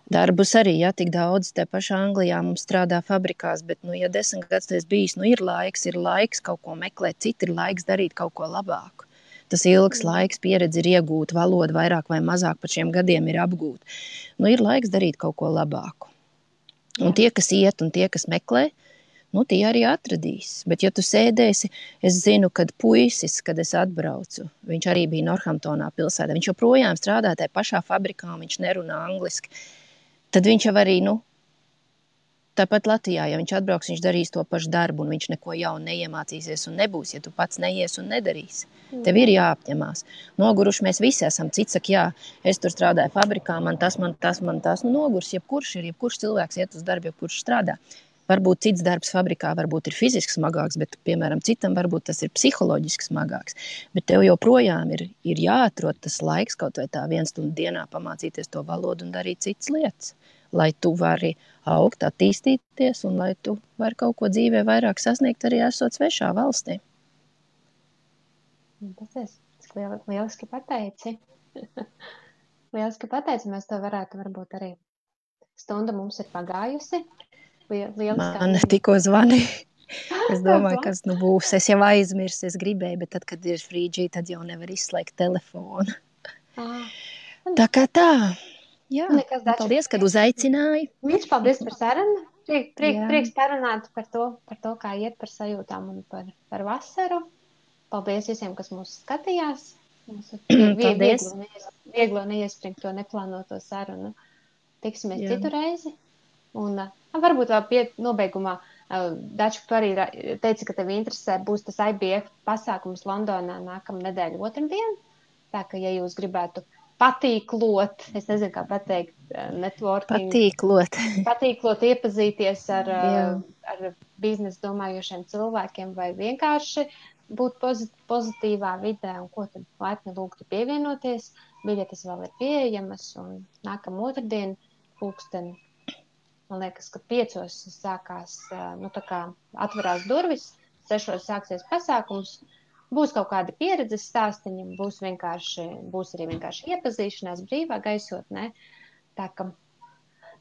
Darbus arī, tik daudz te pašā Anglijā mums strādā fabrikās, bet, ja 10 gadus tas bijis, ir laiks kaut ko meklēt, ir laiks darīt kaut ko labāku. Tas ilgs laiks, pieredze ir iegūta, valoda vairāk vai mazāk par šiem gadiem ir apgūta. Ir laiks darīt kaut ko labāku. Un tie, kas iet un tie, kas meklē, tie arī atradīs. Bet, ja tu sēdēsi, es zinu, kad puisis, kad es atbraucu, viņš arī bija Northamptonā pilsētā, viņš joprojām strādā tajā pašā fabrikā, viņš nerunā angliski. Tad viņš jau arī, tāpat Latvijā, ja viņš atbrauks, viņš darīs to pašu darbu, un viņš neko jaunu neiemācīsies un nebūs, ja tu pats neies un nedarīsi. Tev ir jāapņemās. Noguruši mēs visi esam. Cits saka, es tur strādāju fabrikā, man tas. Nogurs, jebkurš cilvēks iet uz darbu, jebkurš strādā. Varbūt cits darbs fabrikā varbūt ir fiziski smagāks, bet, piemēram, citam varbūt tas ir psiholoģiski smagāks. Bet tev joprojām ir jāatrod tas laiks kaut vai tā 1 stundu dienā pamācīties to valodu un darīt citas lietas, lai tu vari augt, attīstīties un lai tu vari kaut ko dzīvē vairāk sasniegt arī esot svešā valstī. Tas lieliski pateici. Lieliski pateicamies, to varētu varbūt arī. Stunda mums ir pagājusi. Lieliskā Man ziņa. tikko zvanīja. Es domāju, kas nu būs. Es jau aizmirsu, es gribēju, bet tad, kad ir frīdžī, tad jau nevar izslēgt telefonu. Tā kā tā. Jā, Nekas, Dača. paldies, kad uzaicināji. Viņš paldies par sarunu. Prieks parunāt par to, kā iet par sajūtām un par vasaru. Paldies visiem, kas mūs skatījās. Vieglo neiespringt to neplānoto sarunu. Tiksimies citu reizi. Un varbūt vēl nobeigumā, Dača, tu arī teici, ka tev interesē būs tas IBF pasākums Londonā nākamā nedēļa otrdien. Tā ka, ja jūs gribētu patīklot, es nezinu, kā pateikt, networking. Patīklot, iepazīties ar biznesu domājošiem cilvēkiem vai vienkārši būt pozitīvā vidē un ko tad laipni lūgtu pievienoties. Biļetes vēl ir pieejamas un nākamā otrdien pulksteni. Man liekas, ka 5 sākās, tā kā atverās durvis, 6 sāksies pasākums. Būs kaut kādi pieredzes stāstiņi, būs arī vienkārši iepazīšanās brīvā gaisotnē. Tā.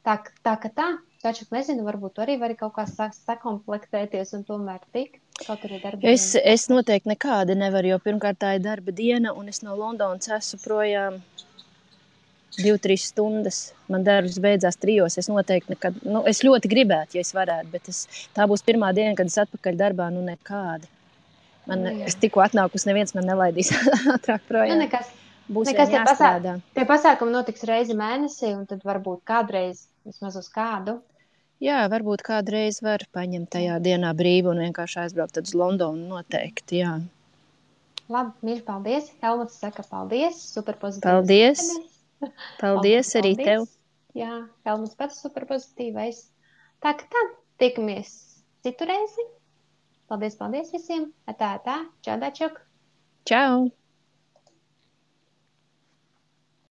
Taču nezinu, varbūt tu arī vari kaut kā sakomplektēties un tomēr tikt. Kaut arī darba diena. Es noteikti nekādi nevaru, jo pirmkārt tā ir darba diena un es no Londonas esmu projām 2-3 stundas. Man darbs beidzās 3. Es noteikti nekad, es ļoti gribētu, ja es varētu, bet tā būs pirmā diena, kad es atpakaļ darbā, nekādi. Es tikko atnākus, neviens man nelaidīs ātrāk projām. Būs jāstrādā. Tie pasākumi notiks reizi mēnesī, un tad varbūt kādreiz, vismaz uz kādu. Jā, varbūt kādreiz var paņemt tajā dienā brīvu un vienkārši aizbraukt uz Londonu noteikti, jā. Labi, mīļi, paldies. Helmuts saka paldies, super pozitīvs. Paldies. Paldies arī tev. Jā, Helmuts pats super pozitīvais. Tā, tiekamies citu reizi. Paldies visiem. Čau, Dačuk. Čau.